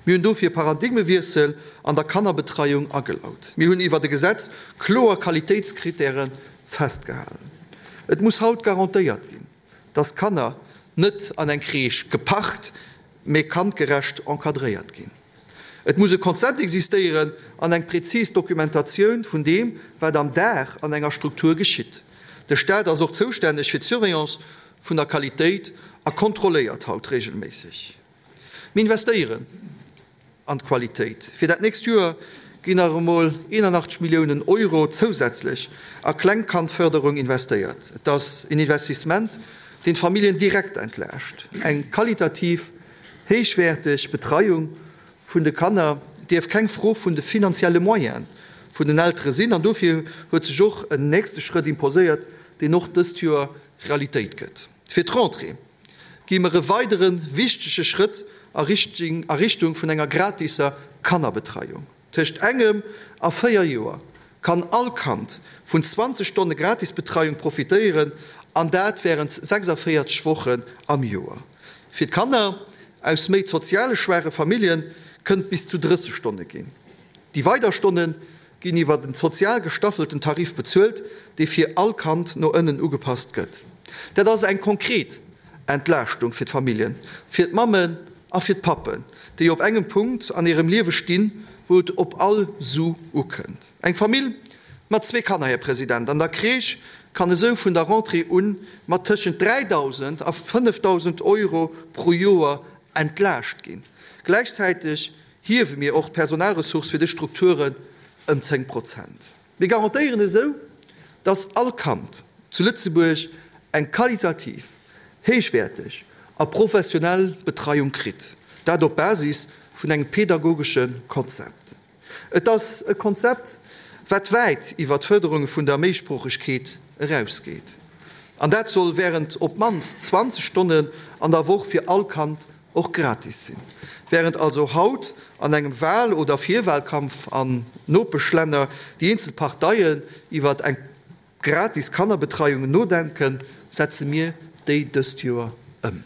Mir hunn dofir e Paradigmewiessel an der Kannerbetreiung agelaut. Mir hunn iwwert e Gesetz kloer Qualitéitskritäre festgehalen. Et muss haut garantéiert ginn, dass d'Kanner net an eng Crèche geparkt, mee kandgerecht encadréiert ginn. Et muss e Konzept existéieren an eng prezis Dokumentatioun vun deem, wat am Dag an enger Struktur geschitt. De Staat ass och zoustänneg fir d'Surveillance vun der Qualitéit a kontrolléiert haut regelméisseg. Mir investéieren an d'Qualitéit. Fir dat nächst Joer ginn nach emol 81 Milliounen Euro zousätzlech a Klengkandförderung investéiert. Et ass en Investissement, deen d'Familljen direkt entlaascht. Eng qualitativ héichwäerteg Betreiung vun de Kanner dierf keng Fro vun de finanzielle Moyene vun den Eltere sinn an dofir huet sech och en nächste Schrëtt imposéiert, deen och dëst Joer Realitéit gëtt. Fir d'Rentrée gi mer e weidere wichtege Schrëtt a Richtung vun enger gratiser Kannerbetreiung. Tëscht engem a 4 Joer kann all Kand vun 20 Stonne Gratisbetreiung profitéieren, an dat wärend 46 Wochen am Joer. Fir d'Kanner aus méi soziale schwaache Famillje kënnt bis zu 30 Stonne ginn. Déi weider Stonne ginn iwwer en sozial gestaffelten Tarif bezuelt, dee fir all Kand no ënnen ugepasst gëtt. Dat ass eng konkret Entlaaschtung fir d'Familljen, fir d'Mammen a fir d'Pappen, déi op engem Punkt an hirem Liewe stinn, wou et op all Su ukënnt. Eng Famill mat zwee Kanner, Här President, an der Crèche kann esou vun der Rentrée un mat tëschent 3.000 a 5.000 Euro pro Joer entlaascht ginn. Gläichzäiteg hiewe mir och d'Personalressource fir dës Strukturen ëm 10 Prozent. Mir garantéieren esou, dass all Kand zu Lëtzebuerg eng qualitativ héichwäerteg a professionell Betreiung kritt, dat op Basis vun engem pedagogesche Konzept. Et ass e Konzept, wat wäit iwwer d'Fërderung vun der Méisproochegkeet erausgeet. An dat soll wärend op d'mannst 20 Stonnen an der Woch fir all Kand och gratis sinn. Wärend also haut an engem Wahl oder Virwahlkampf an Nopeschlänner déi eenzel Parteien iwwert eng gratis Kannerbetreiung nodenken, setze mir déi dëst Joer ëm.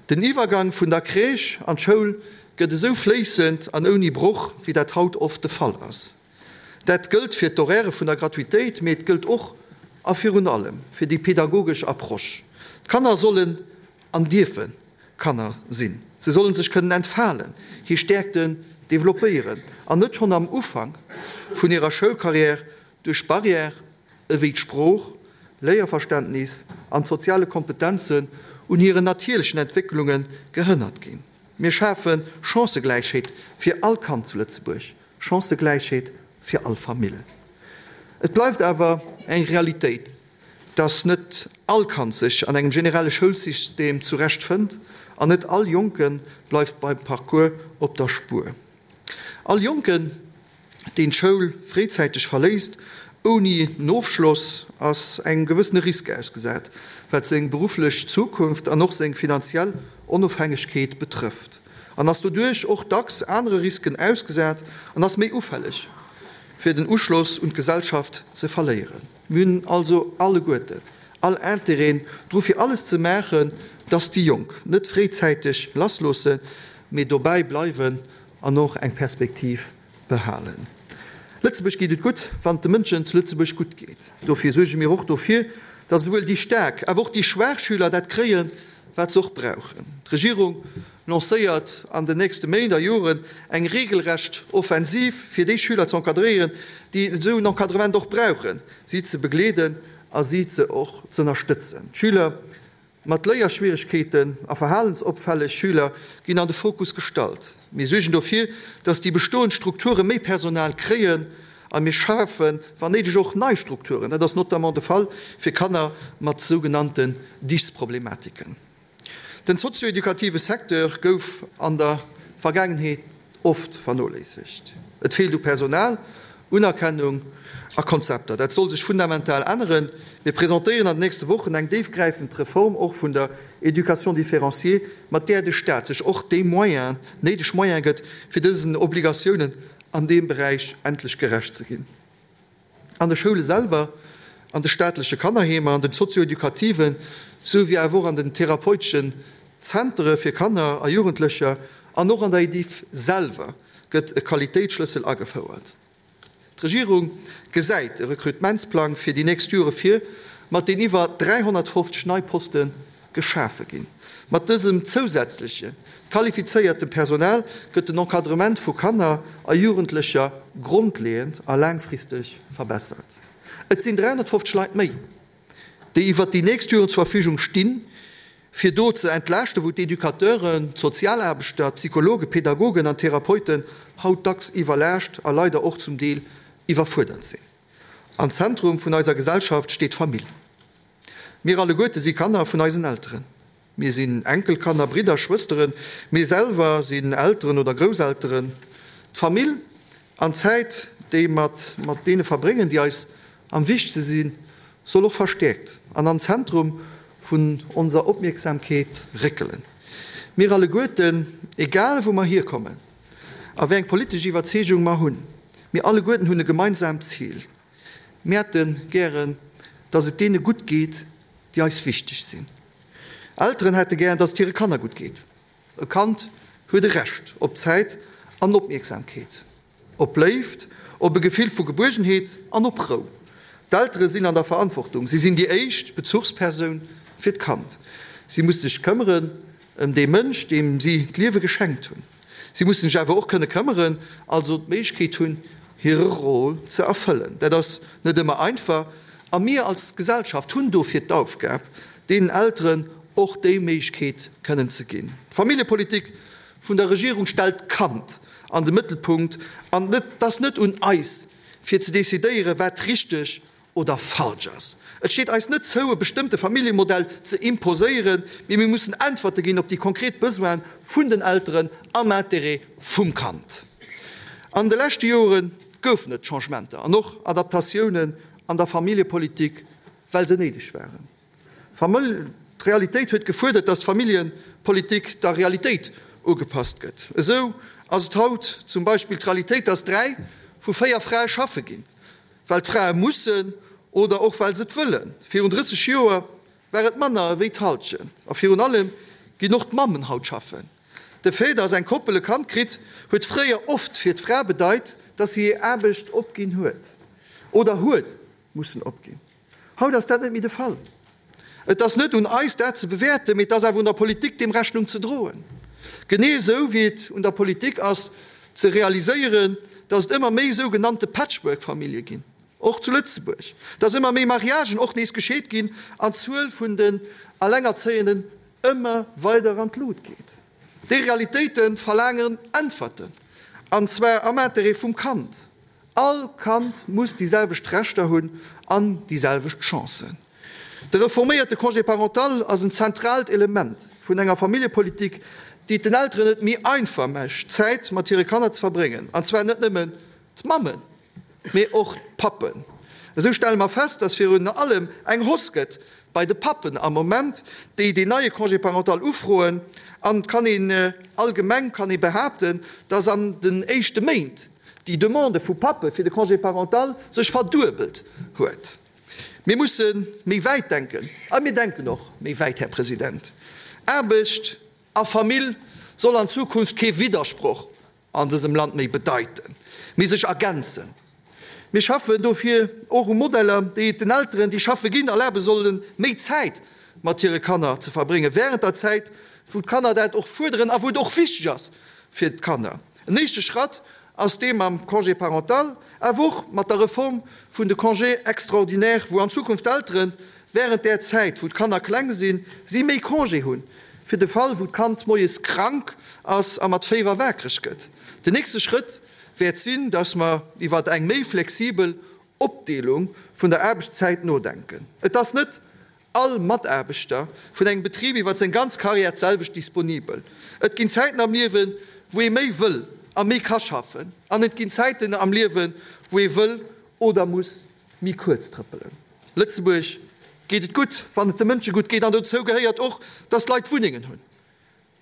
Den Iwwergang vun der Crèche an d'Schoul gëtt esou fléissend an ouni Broch, wéi dat haut oft de Fall ass. Dat gëllt fir d'Horairë vun der Gratuitéit, mee et gëllt och a virun allem fir déi pedagogesch Approche. D'Kanner sollen an dierfe Kanner sinn. Se sollen sech kënnen entfalen, hir Stäerkten developpéieren an net schonn am Ufank vun hirer Schoulcarrière duerch Barrièrë ewéi d'Sprooch, Léierverständnis an d'soziale Kompetenzen un hiren natierlechen Entwécklunge gehënnert ginn. Mir schafe Chancëgläichheet fir all Kand zu Lëtzebuerg, Chancëgläichheet fir all Famill. Et bleift awer eng Realitéit, dass net all Kand sech an engem generelle Schoulsystem zurecht fënnt an net all Jonke bleift beim Parcours op der Spuer. All Jonken, deen d'Schoul fréizäiteg verléisst ouni en Ofschloss, ass engem gewëssene Risk ausgesat, wat seng berufflech Zukunft an och seng finanziell Onofhängegkeet betrëfft. an ass doduerch och dacks anere Risken ausgesat an ass méi ufälleg, fir den Uschloss un d'Gesellschaft ze verléieren. Mir hunn also alleguerten all Intérêt dru fir alles ze maachen, dass déi Jonk net fréizäiteg lassloossen, mee dobäi bleiwen an och eng Perspektiv behalen. Lëtzebuerg geet et gutt, wann et de Mënschen zu Lëtzebuerg gutt geet. Dofir suerge mir och dofir, dass esouwuel déi staark, awer och déi schwaach Schüler dat kréien, wat se och brauchen. D'Regierung lancéiert an den nächste Méint a Joren eng regelrecht Offensiv, fir déi Schüler ze encadréieren, déi esou en Encadrement och brauchen, si ze begleeden a si ze och z'ënnerstëtzen. D'Schüler mat Léierschwieregkeeten a verhalensopfälleg Schüler ginn an de Fokus gestallt. Mir suergen dofir, dass déi bestoend Strukture méi Personal kréien a mir schafen, wann néideg, och nei Strukturen. Dat ass notamment de Fall fir Kanner mat sougenannten Dys-Problematiken. Den sozio-edukative Secteur gouf an der Vergaangenheet oft vernoléissegt. Et feelt u Personal, Unerkennung a Konzepter. Dat soll sech fundamental änneren. Mir presentéieren an den nächste Wochen eng déifgräifend Reform och vun der Éducation différenciée, mat där de Staat sech och déi Moyens, néideg Moyens gëtt, fir dësen Obligatiounen an deem Beräich endlech gerecht ze ginn. An de Schoule selwer, an de staatleche Kannerheemer, an den sozio-educativen, sou wéi awer och an den therapeuteschen Zentere fir Kanner a Jugendlecher an och an der Ediff selwer gëtt e Qualitéitsschlëssel agefouert. D'Regierung gesäit e Rekrutementsplang fir déi nächst Jore vir, mat deem iwwer 350 nei Poste geschafe ginn. Mat dësem zousätzleche qualifizéierte Personal gëtt den Encadrement vu Kanner a Jugendlecher grondleeënd a laangfristeg verbessert. Et sinn 350 Leit méi, déi iwwert déi nächst Joren zur Verfügung stinn, fir do ze entlaaschten, wou d'Educateuren, d'Sozialaarbechter, d'Psychologen, d'Pedagogen an d'Therapeuten haut dacks iwwerlaascht a leider och zum Deel iwwerfuerdert sinn. Am Zentrum vun eiser Gesellschaft steet d'Famill. Mir alleguerte si Kanner vun eisen Elteren. Mir sinn Enkelkanner, Bridder, Schwësteren. Mir selwer sinn Elteren oder Grousselteren. D'Famill an d'Zäit, déi mer mat deene verbréngen, déi eis am wichtegste sinn, soll och verstäerkt an an d'Zentrum vun onser Opmierksamkeet réckelen. Mir alleguerten, egal wou mer hierkommen a wéi eng politesch Iwwerzeegung mer hunn, mir alleguerten hunn e gemeinsaamt Zil, Mir hätte gären, dass et deene gutt geet, déi eis wichteg sinn. Elteren hätte gären, dass et hire Kanner gutt geet. E Kand huet e Recht op Zäit an Opmierksamkeet, op Léift, op e Gefill vu Gebuergenheet an op Rou. D'Eltere sinn an der Verantwortung. Si sinn déi éischt Bezuchspersoun fir d'Kand. Si musse sech këmmeren ëm dee Mënsch, deem si d'Liewe geschenkt hunn. Si mussen sech awer och kënne këmmeren, also d'Méiglechkeet hunn, hire Rôle ze erfëllen. Dat ass net ëmmer einfach a mir als Gesellschaft hunn dofir d'Aufgab, deenen Elteren och déi Méiglechkeet kënnen ze ginn. D'Familljepolitik vun der Regierung stellt d'Kand an de Mëttelpunkt an et ass net un eis, fir ze decidéieren, wat richteg oder falsch ass. Et steet eis net zou, e bestëmmte Familljemodell ze imposéieren, mee mir mussen Äntwerte ginn op déi konkret Besoine vun den Elteren am Interêt vum Kand. An de leschte Jore goufen et Changementer an och Adaptatiounen an der Familljepolitik, well se néideg waren. D'Realitéit huet gefuerdert, dass d'Familljepolitik der Realitéit ugepasst gëtt. Esou ass et haut zum Beispill d'Realitéit, dass 3 vu 4 Frae schaffe ginn. Well d'Frae mussen oder och well se et wëllen. Virun 30 Joer war et manner ewéi d'Hallschent. A virun allem ginn och d'Mammen haut schaffen. De Fait, dass eng Koppel e Kand kritt, huet fréier oft fir d'Fra bedeit, dass si hir Aarbecht opginn huet oder huet mussen opginn. Haut ass dat net méi de Fall. Et ass net un eis, dat ze bewäerten, mee et ass awer un der Politik, deem Rechnung ze droen. Genee esou wéi et un der Politik ass, ze realiséieren, dass et ëmmer méi sougenannte Patchwork-Famillje ginn, och zu Lëtzebuerg, dass ëmmer méi Mariagen och nees gescheet ginn an d'Zuel vun den Allengerzéienden ëmmer weider an d'Lut geet. Déi Realitéite verlaangen Äntwerten, an zwar am Interêt vum Kand. All Kand muss déi selwecht Rechter hunn an déi selwecht Chancen. De reforméierte Congé parental ass en zentraalt Element vun enger Familljepolitik, déi et den Elteren et méi einfach mécht, Zäit mat hire Kanner ze verbréngen, an zwar net nëmmen d'Mammen, mee och d'Pappen. Esou stelle mer fest, dass virun allem eng Hausse gëtt. bei de Pappen am Moment, déi deen neie Congé parental ufroen. An et kann een allgemeng kann ee behaapten, dass an den éischte Méint déi Demande vu Pappe fir de Congé parental sech verduebelt huet. Mir musse méi wäit denken a mir denken och méi wäit, Här President. Aarbecht a Famill soll an Zukunft kee Widdersproch an dësem Land méi bedeiten, mee sech ergänzen. Mir schaffen dofir och u Modeller, déi et den Elteren, déi schaffe ginn, erlabe sollen, méi Zäit mat hire Kanner ze verbréngen, während der Zäit, wou d'Kanner dat och fuerderen a wou et och wichteg ass fir d'Kanner. En éischte Schratt ass dee mam Congé parental, awer och mat der Reform vun de Congés extraordinaires, wou an Zukunft d'Eltere während där Zäit, wou d'Kanner kleng sinn, si méi Congé hunn, fir de Fall, wou d'Kand moies krank ass a mat Féiwer waakreg gëtt. Den nächste Schrëtt wäert sinn, dass mer iwwer eng méi flexibel Opdeelung vun der Aarbechtszäit nodenken. Et ass net all Mataarbechter vun engem Betrib iwwer seng ganz Karriär d'selwecht disponibel. Et ginn Zäiten am Liewen, wou ee méi wëll a méi ka schaffen, an et ginn Zäiten am Liewen, wou ee wëll oder muss méi kuerz trëppelen. Lëtzebuerg geet et gutt, wann et de Mënsche gutt geet, an dozou gehéiert och, dass d'Leit Wunnengen hunn.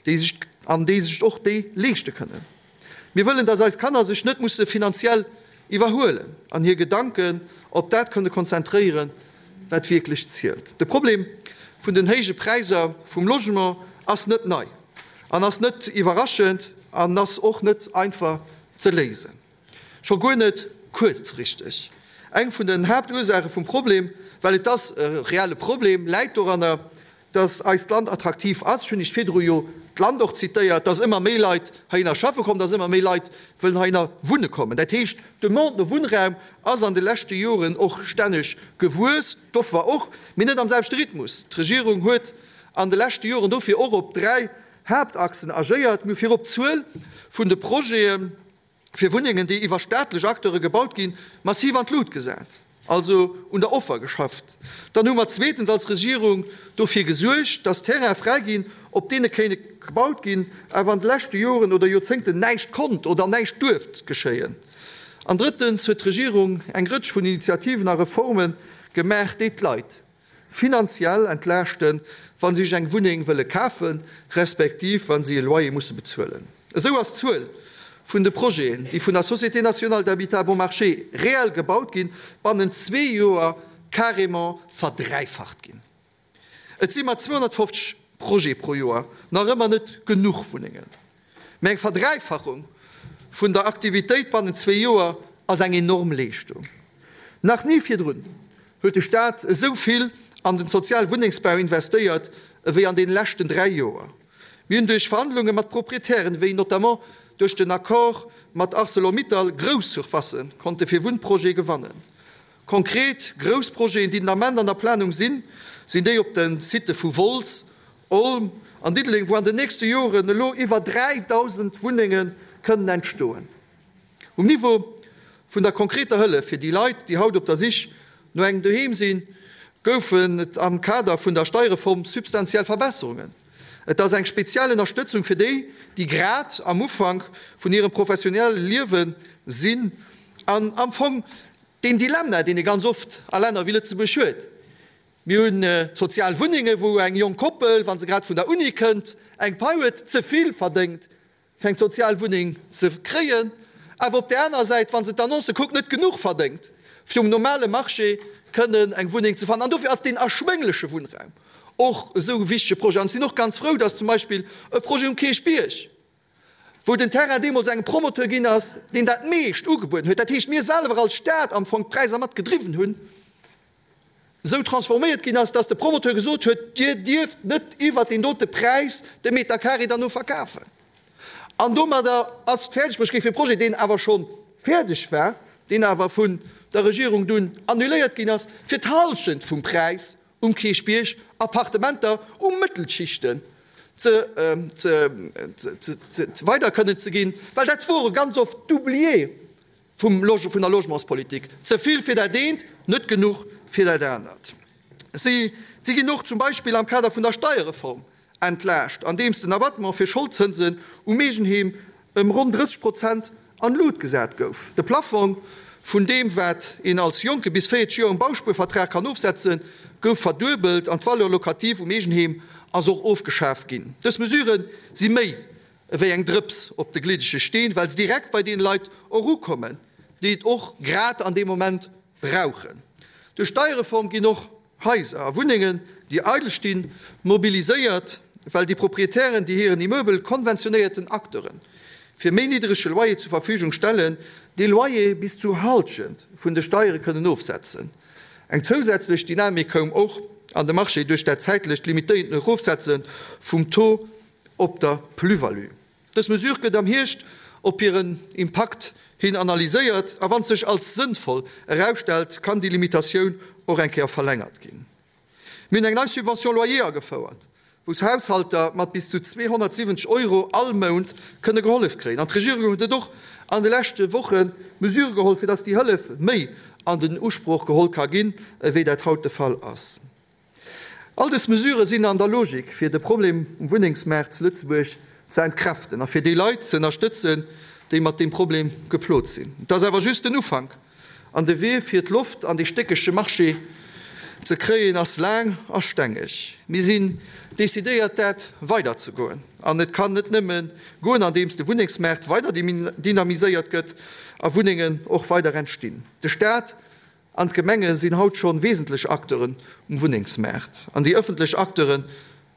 déi sech an déi sech och déi leeschte kënnen. Mir wëllen, dass eis Kanner sech net musse finanziell iwwerhuelen an hir Gedanken op dat kënne konzentréieren, wat wierklech zielt. De Problem vun den héije Präisser vum Logement ass net nei an ass net iwwerraschend an ass och net einfach ze léisen, scho guer net kuerzfristeg. Eng vun den Haaptursaache vum Problem, well et ass e reelle Problem, läit doranner, dass eist Land attraktiv ass, ech hunn Iech virdru jo d'Land och zitéiert, dass ëmmer méi Leit heihinner schaffe kommen, dass ëmmer méi Leit wëllen heihinner wunne kommen. Dat heescht, d'Demande no Wunnraum ass an de leschte Joren och stänneg gewuess, d'Offer och, mee net am selwechte Rhythmus. D'Regierung huet an de leschte Joren dofir och op 3 Haaptachsen agéiert. Mir hu virop d'Zuel vun de Projeten, fir Wunnengen, déi iwwer staatlech Acteure gebaut ginn, massiv an d'Lut gesat, also un der Offer geschafft. Dann hu mer zweetens als Regierung dofir gesuergt, dass Terraine fräi ginn, op deene kéint gebaut ginn, awer an de leschte Joren oder Joerzéngten näischt konnt oder näischt duerft geschéien. An drëttens huet d'Regierung eng Rëtsch vun Initiativen a Reforme gemaach, déi d'Leit finanziell entlaaschten, wa si sech eng Wunneng wëlle kafen, respektiv wa si e Loyer musse bezuelen. Esou ass d'Zuel vun de Projeten, déi vun der Société nationale d'habitat bon marché reell gebaut ginn, bannent zwee Joer carrément verdräifacht ginn. Et si mat 250 Projete pro Joer nach ëmmer net genuch Wunnengen. Mä eng Verdräifachung vun der Aktivitéit bannent zwee Joer ass eng enorm Leeschtung. Nach ni virdrun huet de Staat esou vill an den soziale Wunnengsbau investéiert ewéi an deene leschten 3 Joer. Mir hunn duerch Verhandlunge mat Proprietären, wéi notamment duerch den Accord mat Arcelor-Mittal, grouss Surfacë konnte fir Wunnprojete gewannen. Konkret grouss Projeten, déi den Ament an der Planung sinn, sinn déi op de Sitte vu Wolz, Olm an Diddeleng, wou an den nächste Joren elo iwwer 3.000 Wunnenge kënnen entstoen. Um Niveau vun der konkreter Hëllef fir déi Leit, déi haut op der Sich no engem Doheem sinn, goufen et am Kader vun der Steierreform substantiell Verbesserungen. Et ass eng speziell Ënnerstëtzung fir déi, déi grad am Ufank vun hirem professionelle Liewe sinn an am Fong deen Dilemma, deen ee ganz oft a Länner wéi Lëtzebuerg huet. Mir hunn sozial Wunnengen, wou eng jonk Koppel, wa se grad vun der Uni kënnt, eng Pai huet, ze vill verdéngt, fir eng sozial Wunneng ze kréien, awer op där anerer Säit, wa se d'Annoncë kuckt, net genuch verdéngt, fir um normale Marché kënnen eng Wunneng ze fannen. An dofir ass deen erschwéngleche Wunnraum och esou e wichtege Projet. An ech sinn och ganz frou, dass zum Beispill e Projet um Kierchbierg, wou den Terrain deemools engem Promoteur ginn ass, deen dat meescht ugebueden huet, dat heescht mir selwer als Stad am Fong d'Präisser mat gedriwwen hunn, esou transforméiert ginn ass, dass de Promoteur gesot huet, Dir dierft net iwwert deen dote Präis de Meter carré derno verkafen. An domadder ass et fäerdeg bruecht gi fir e Projet, deen awer scho fäerdeg war, deen awer vun der Regierung dunn annuléiert ginn ass, fir d'Hallschent vum Präis um Kierchbierg Appartementer u Mëttelschichten ze weider kënnen ze ginn, well dat wore ganz oft d'Oublié vum vun der Logementspolitik, ze vill fir dat eent, net genuch fir dat anert. Si si ginn och zum Beispill am Kader vun der Steierreform entlaascht, andeems den Abattement fir Scholdzënsen um Eegenheem ëm ronn 30 Prozent an d'Lut gesat gouf. De Plaffong. vun deem, wat een als Jonke bis 40 Joer um Bauspuervertrag kann ofsetzen, gouf verduebelt an d'Valeur locative um Eegenheem ass och ofgeschaf ginn. Dës Mesurë si méi ewéi eng Drëps op de gliddege Steen, well se direkt bei deene Leit erukommen, déi et och grad an deem Moment brauchen. Duerch d'Steierreform ginn och Haiser a Wunnengen, déi eidel stinn, mobiliséiert, well déi Proprietären, déi hiren Immeubel konventionéierten Acteure fir méi niddrege Loyer zur Verfügung stellen, dee Loyer bis zu Hallschent vun de Steiere kënnen ofsetzen. Eng zousätzlech Dynamik koum och an de Marché duerch dat zäitlecht limitéierten Erofsetze vum Taux op der Plus-value. Dës Mesure gëtt am Hierscht op hiren Impakt hin analyséiert a wann sech als sënnvoll erausstellt, kann déi Limitatioun och eng Kéier verlängert ginn. Mir hunn eng nei Subvention loyer agefouert, wou Haushalter mat bis zu 270 Euro all Mount kënne gehollef kréien. An d'Regierung huet och an de leschte Woche Mesure geholl, fir dass déi Hëllef méi an den Usproch geholl ka ginn, ewéi dat haut de Fall ass. All dës Mesurë sinn an der Logik, fir de Problem um Wunnengsmaart zu Lëtzebuerg ze entkräften a fir déi Leit ze ënnerstëtzen, déi mat deem Problem geplot sinn. Et ass awer just den Ufank an de Wee, fir d'Loft an dee stéckege Marché ze kréien, ass laang a stengeg. Mir sinn decidéiert, dat weiderzegoen an et kann net nëmme goen, andeems de Wunnengsmaart weider dynamiséiert gëtt a Wunnengen och weider entstinn. De Staat An d'Gemenge sinn haut schonn wesentlech Acteuren um Wunnengsmaart an déi ëffentlech Acteure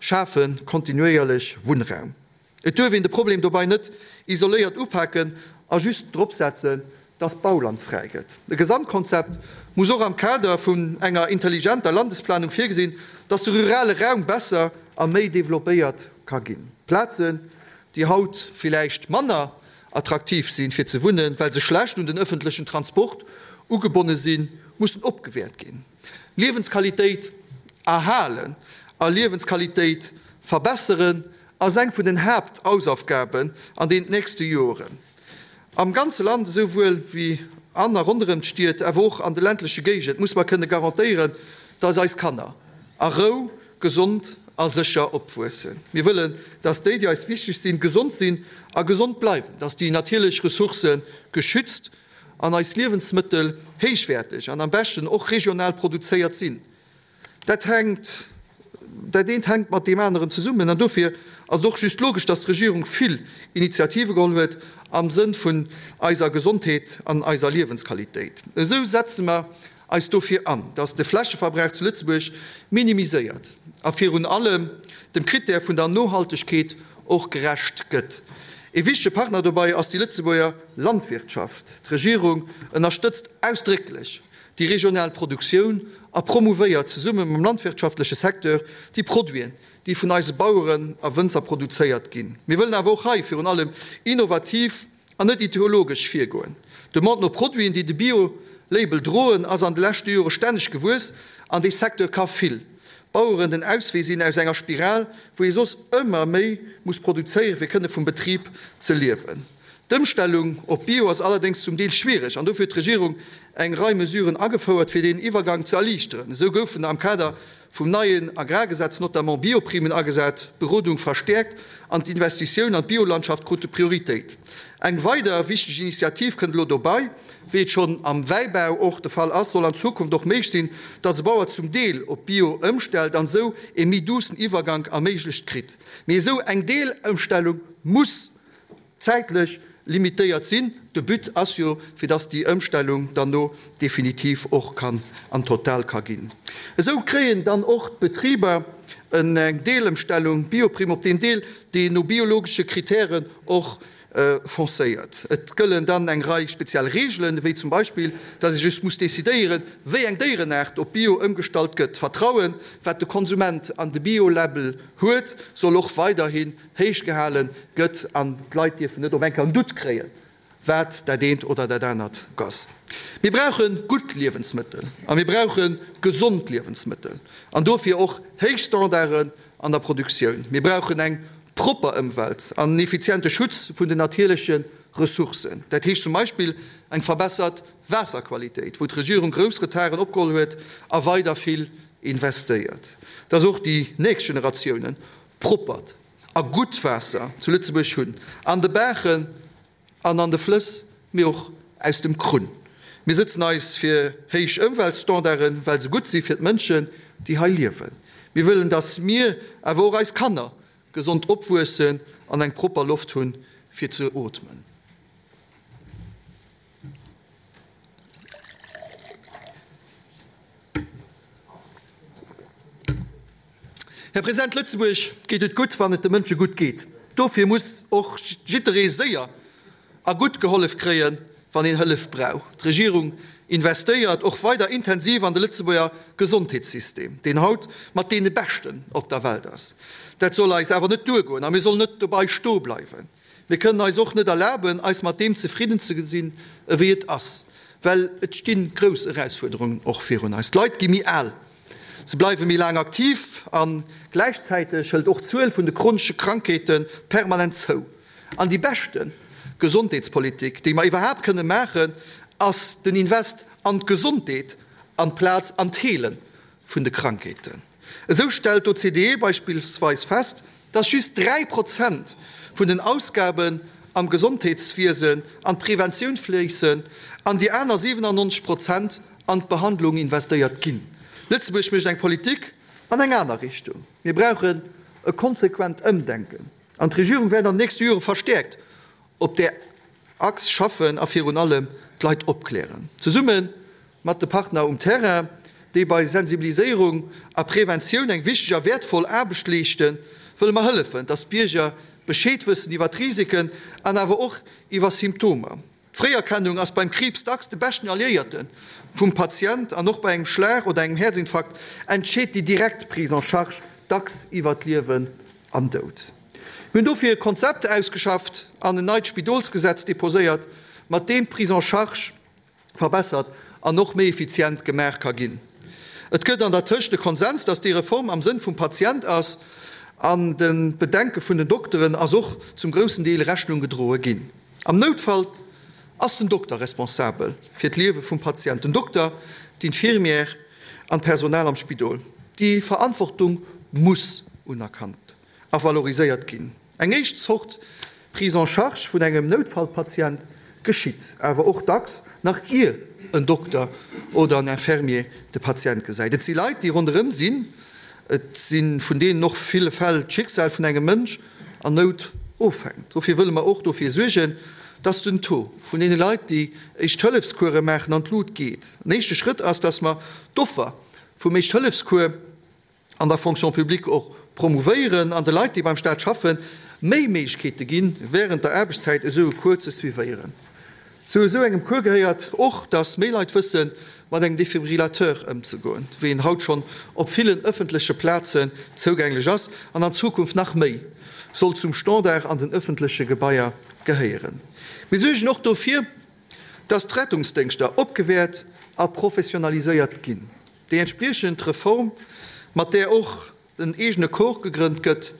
schafe kontinuéierlech Wunnraum. Et duerf een de Problem dobei net isoléiert upaken a just drop setzen, dass Bauland fräi gëtt. E Gesamtkonzept muss och am Kader vun enger intelligenter Landesplanung virgesinn, dass de rurale Raum besser a méi developpéiert ka ginn. Plazen, déi haut villäicht manner attraktiv sinn, fir ze wunnen, well se schlecht un den ëffentlechen Transport ugebonne sinn, mussen opgewäert ginn. Liewensqualitéit erhalen a Liewensqualitéit verbesseren ass eng vun den Haapthausaufgaben an den nächste Joren. Am ganze Land, esou wuel wéi an a ronderëm d'Stied, awer och an de ländleche Géigend, muss mer kënne garantéieren, dass eis Kanner a Rou, gesond a sécher opwuessen. Mir wëllen, dass déi, déi eis wichteg sinn, gesond sinn a gesond bleiwen, dass déi natierlech Ressourcë geschützt an eis Liewensmëttel héichwäerteg an am beschten och regional produzéiert sinn. Dat hänkt, dat eent hänkt mat deem aneren zesummen an dofir ass et och just logesch, dass d'Regierung vill Initiative geholl huet am Sënn vun eiser Gesondheet an eiser Liewensqualitéit. Esou setze mer eis dofir an, dass de Flächeverbrauch zu Lëtzebuerg minimiséiert a virun allem dem Krittär vun der Nohaltegkeet och gerecht gëtt. Ee wichtege Partner dobei ass déi Lëtzebuerger Landwirtschaft. D'Regierung ënnerstëtzt ausdrécklech déi regional Produktioun a promouvéiert zesumme mam landwirtschaftleche Secteur déi Produiten, déi vun eise Baueren a Wënzer produzéiert ginn. Mir wëllen awer och hei virun allem innovativ An net ideologesch virgoen. D'Demande no Produiten, déi de Bio-Label droen, ass an de leschte Jore stänneg gewuess an dee Secteur ka vill Baueren den Auswee sinn aus enger Spiral, wou ee soss ëmmer méi muss produzéieren, fir kënne vum Betrib ze liewen. D'Ëmstellung op Bio ass allerdéngs zum Deel schwiereg an dofir huet d'Regierung eng Rei Mesuren agefouert, fir deen Iwwergang ze erliichteren. Esou goufen am Kader vum neien Agrargesetz notamment Bioprimen agesat, d'Berodung verstäerkt an d'Investitioun an d'Biolandschaft krute Prioritéit. Eng weider wichteg Initiativ kënnt elo dobei, Wéi et schonn am Wäibau och de Fall ass, soll an Zukunft och méiglech sinn, dass e Bauer zum Deel op Bio ëmstellt an esou ee méi duussen Iwwergank erméiglecht kritt. Mee esou eng Deelëmstellung muss zäitlech limitéiert sinn. De But ass jo, fir dass déi Ëmstellung dann no definitiv och kann an total ka ginn. Esou kréien dann och d'Betriber eng Deelëmstellung, Bioprime, op deen Deel, deen no biologesche Kritären och foncéiert. Et gëllen dann eng Rei speziell Reegelen, wéi zum Beispill, dass ee just muss decidéieren, wéi eng Déierenaart op Bio ëmgestallt gëtt. D'Vertrauen, wat de Konsument an de Bio-Label huet, soll och weiderhi héich gehale gëtt an d'Leit dierfen net op eng Kéier en Doute kréien, wat dat eent oder dat anert ass. Mir brauche gutt Liewensmëttel a mir brauche gesond Liewensmëttel an dofir och héich Standarden an der Produktioun. Mir brauchen eng propper Ëmwelt an en effiziente Schutz vun den natierleche Ressourcen. Dat heescht zum Beispill eng verbessert Waasserqualitéit, wou d'Regierung grouss Retarden opgeholl huet a weider vill investéiert, dass och déi nächst Generatiounen Proppert a gutt Waasser zu Lëtzebuerg hunn, an de Baachen an an de Flëss, mee och aus dem Krunn. Mir sëtzen eis fir héich Ëmweltstandarden, well se gutt si fir d'Mënschen, déi hei liewen. Mir wëllen, dass mir, awer och eis Kanner, gesond opwuessen an eng propper Loft hunn, fir ze ootmen. Här President, Lëtzebuerg geet et gutt, wann et de Mënsche gutt geet. Dofir muss och jidderee séier a gutt gehollef kréien, wann een Hëllef brauch. D'Regierung investéiert och weider intensiv an de Lëtzebuerger Gesondheetssystem, deen haut mat deene beschten op der Welt ass. Dat soll eis awer net duergoen a mir sollen net dobei stoe bleiwen. Mir kënnen eis och net erlaben, eis mat deem zefridden ze gesinn, ewéi et ass, well et sti grouss Erausfuerderungen och virun eis. D'Leit gi méi al, se bleiwe méi laang aktiv a gläichzäiteg hëlt och d'Zuel vun de chronesche Krankheete permanent zou. An déi beschte Gesondheetspolitik, déi mer iwwerhaapt kënne maachen, ass den Invest an d'Gesondheet amplaz an d'Heele vun de Krankheeten. Esou stellt d'OCDE beispillsweis fest, dass just 3 Prozent vun den Ausgaben am Gesondheetswiesen an d'Preventioun fléissen an déi aner 97 Prozent an d'Behandlung investéiert ginn. Lëtzebuerg mécht eng Politik an eng aner Richtung. Mir brauchen e konsequent Ëmdenken an d'Regierung wäert an den nächste Jore verstäerkt op där Achs schaffen a virun allem d'Leit opklären, zesumme mat de Partner um Terrain, déi bei Sensibiliséierung a Preventioun eng wichteg a wäertvoll Aarbecht leeschten, wëlle mer hëllefen, dass d'Bierger Bescheed wëssen iwwer d'Risiken an awer och iwwer Symptomer. D'Fréierkennung ass beim Kriibs dacks de beschten Alliéierte vum Patient an och bei engem Schlag oder engem Häerzinfarkt entscheet déi direkt Prise en charge dacks iwwer Liewen an Doud. Mir hunn dofir e Konzept ausgeschafft an en neit Spidolsgesetz deposéiert, mat deem d'Prise en charge verbessert an och méi effizient gemaach ka ginn. Et gëtt an der Tëscht e Konsens, dass déi Reform am Sënn vum Patient ass, an de Bedenke vun den Dokteren ass och zum groussen Deel Rechnung gedroe ginn. Am Noutfall ass den Dokter responsabel fir d'Liewe vum Patient, den Dokter, d'Infirmière an d'Personal am Spidol. Déi Verantwortung muss unerkannt a valoriséiert ginn. Eng éischt Zort Prise en charge vun engem Noutfallpatient geschitt awer och dacks nach ier en Dokter oder en Infirmier de Patient gesäit. Et si Leit, déi ronderëm sinn. Et si vun deenen och ville Fäll d'Schicksal vun engem Mënsch an Nout ofhänkt. Dofir wëlle mer och dofir suergen, dass den Taux vun deene Leit, déi Éischt-Hëllefscourse maachen, an d'Lut geet. En éischte Schrëtt ass, dass mer d'Offer vum Éischt-Hëllefscours, an der Fonction publique och promouvéieren an de Leit, déi beim Staat schaffen, méi Méiglechkeete ginn, wärend der Aarbechtszäit esou e Cours ze suivéieren. Zu esou engem Cours gehéiert och, dass méi Leit wëssen, mat engem Defibrillateur ëmzegoen, wéi en haut schonn op villen ëffentleche Plazen zougänglech ass an an Zukunft nach méi soll zum Standard an den ëffentleche Gebaier gehéieren. Mir suergen och dofir, dass d'Rettungsdéngschter opgewäert a professionaliséiert ginn. Déi entspriechend Reform, mat där och en eegene Corps gegrënnt gëtt,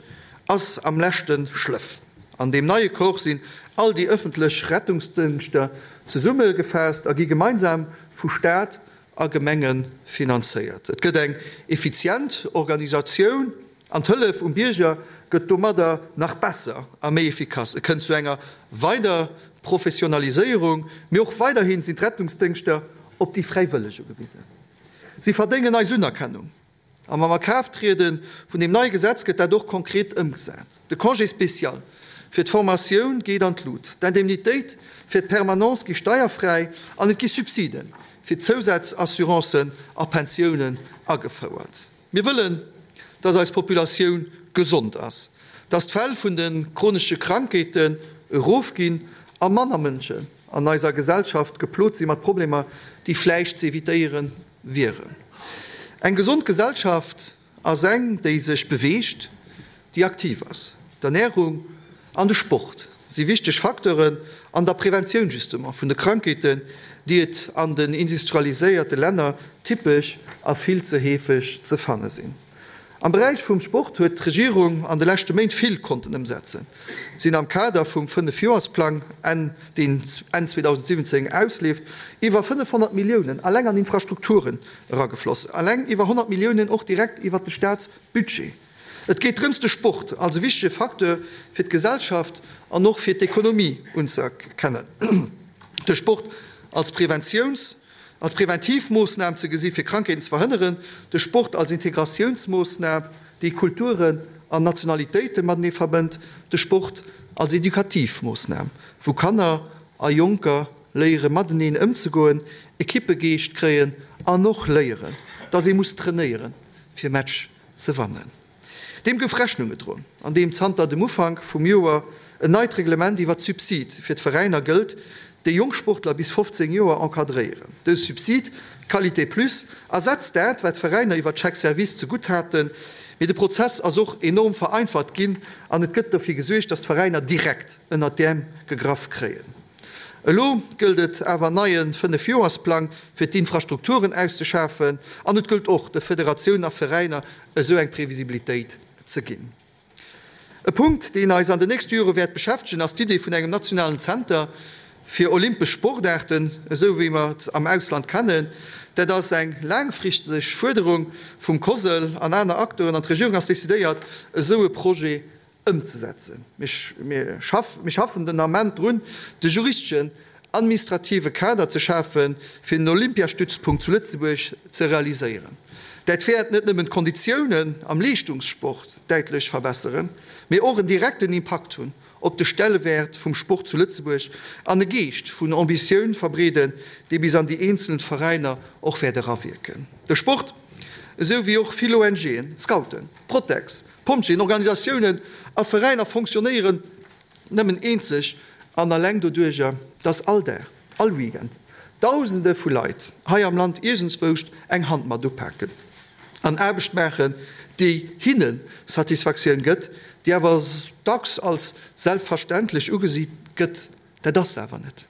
ass am leschte Schlëff. An deem neie Corps sinn all déi ëffentlech Rettungsdëngschter zesummegefaasst a gi gemeinsam vu Staat a Gemenge finanzéiert. Et gëtt eng effizient Organisatioun an d'Hëllef um Bierger gëtt domadder nach besser a méi effikass. Et kënnt zu enger weider Professionaliséierung, mee och weiderhi sinn d'Rettungsdëngschter op déi Fräiwëlleg ugewisen. Si verdéngen eis Unerkennung. A mam A Kraaft triede vun deem neie Gesetz gëtt dat och konkret ëmgesat. De Congé spécial fir d'Formatioun geet an d'Lut, d'Indemnitéit fir d'Permanence gi steierfräi an et gi Subside fir Zousazassurancen a Pensiounen agefouert. Mir wëllen, dass eis Populatioun gesond ass, dass d'Fäll vun de chronesche Krankheeten erofginn a manner Mënschen an eiser Gesellschaft geplot si mat Problemer, déi vläicht ze evitéiere wieren. Eng gesond Gesellschaft ass eng, déi sech beweegt, déi aktiv ass. D'Ernärung an de Sport si wichteg Facteuren an der Preventioun justement vun de Krankheeten, déi et an den industrialiséierte Länner typesch a vill ze heefeg ze fanne sinn. Am Beräich vum Sport huet d'Regierung an de leschte Méint vill konnten ëmsetzen. Et sinn am Kader vum Fënnefjoersplang, deen Enn 2017 ausleeft, iwwer 500 Milliounen alleng an Infrastrukturen eragefloss, alleng iwwer 100 Milliounen och direkt iwwert de Staatsbudget. Et geet drëms, de Sport als e wichtege Facteur fir d'Gesellschaft an och fir d'Ekonomie unzëerkennen. De Sport. als Preventiouns-, als Präventivmoossnam ze gesi fir Krankheeten ze verhënneren, de Sport als Integratiounsmoossnam, déi Kulturen an Nationalitéite matenee verbënnt, de Sport als Edukativmoossnam, wou Kanner a Jonker léiere mateneen ëmzegoen, Ekippegeescht kréien an och léieren, dass ee muss trainéieren, fir Match ze wannen. Deem gouf Rechnung gedroen, andeem zanter dem Ufank vum Joer en neit Reglement iwwer d'Subside fir d'Veräiner gëllt, déi jonk Sportler bis 15 Joer encadréieren. Dëse Subsid, Qualité Plus, ersetzt dat, wat d'Veräiner iwwer d'Chèques-services zegutt haten. Mee de Prozess ass och enorm vereinfacht ginn an et gëtt dofir gesuergt, datt d'Veräiner direkt ënnert d'Äerm gegraff kréien. Elo gëllt et awer en neie Fënnefjoersplang fir d'Infrastrukturen auszeschafen an et gëllt och de Federatiounen a Veräiner esou eng Previsibilitéit ze ginn. E Punkt, deen eis an den nächste Jore wäert beschäftegen, ass d'Idee vun engem nationalen Zenter fir olympesch Sportaarten, esou wéi mer et am Ausland kennen. Dat ass eng laangfristeg Fuerderung vum COSL an aner Acteuren an d'Regierung ass decidéiert, esou e Projet ëmzesetzen. Mir schaffen den Ament drun, de juristeschen, administrative Kader ze schafen, fir en Olympiastützpunkt zu Lëtzebuerg ze realiséieren. Dat wäert net nëmmen d'Konditiounen am Leeschtungssport däitlech verbesseren, mee och en direkten Impakt hunn op de Stellewäert vum Sport zu Lëtzebuerg an e Geescht vun Ambitioun verbreeden, dee bis an déi eenzel Veräiner och wäert erawierken. De Sport, esou wéi och vill ONGen, Scouten, Protex, Pompjeeën, Organisatiounen a Veräiner fonctionnéieren nëmmen eenzeg an alleng doduerjer, dass all Dag, all Weekend Dausende vu Leit hei am Land iergendswouscht eng Hand mat upaken an Aarbecht maachen, déi hinne Satisfaktioun gëtt, déi awer dacks als selbstverständlech ugesi gëtt. Dat ass se awer net.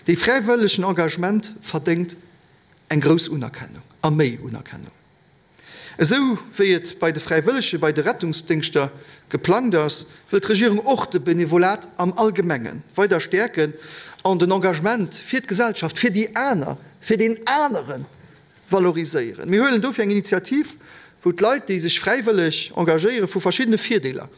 Dee fräiwëllegen Engagement verdéngt eng grouss Unerkennung a méi Unerkennung. Esou wéi et bei de Fräiwëllege bei de Rettungsdéngschter geplangt ass, wëll d'Regierung och de Benevolat am Allgemenge weider stäerken an den Engagement fir d'Gesellschaft, fir déi aner, fir deen anere valoriséieren. Mir huelen dofir eng Initiativ, wou d'Leit, déi sech fräiwëlleg engagéieren, vu verschiddene Virdeeler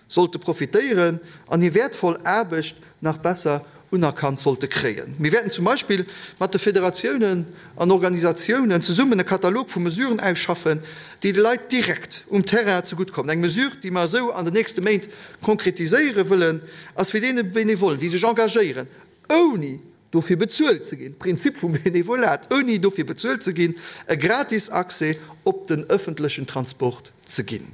sollte profitéieren an hir wäertvoll Aarbecht nach besser unerkannt sollte kréien. Mir wäerten zum Beispill mat de Federatiounen an Organisatiounen zesummen e Katalog vu Mesuren ausschaffen, déi de Leit direkt um Terrain zegutt kommen. Eng Mesure, déi mer esou an den nächste Méint konkretiséiere wëllen, ass fir deene Benevollen, déi sech engagéieren, ouni dofir bezuelt ze ginn, Prinzip vum Benevolat, ouni dofir bezuelt ze ginn, e gratis Accès op den ëffentlechen Transport ze ginn.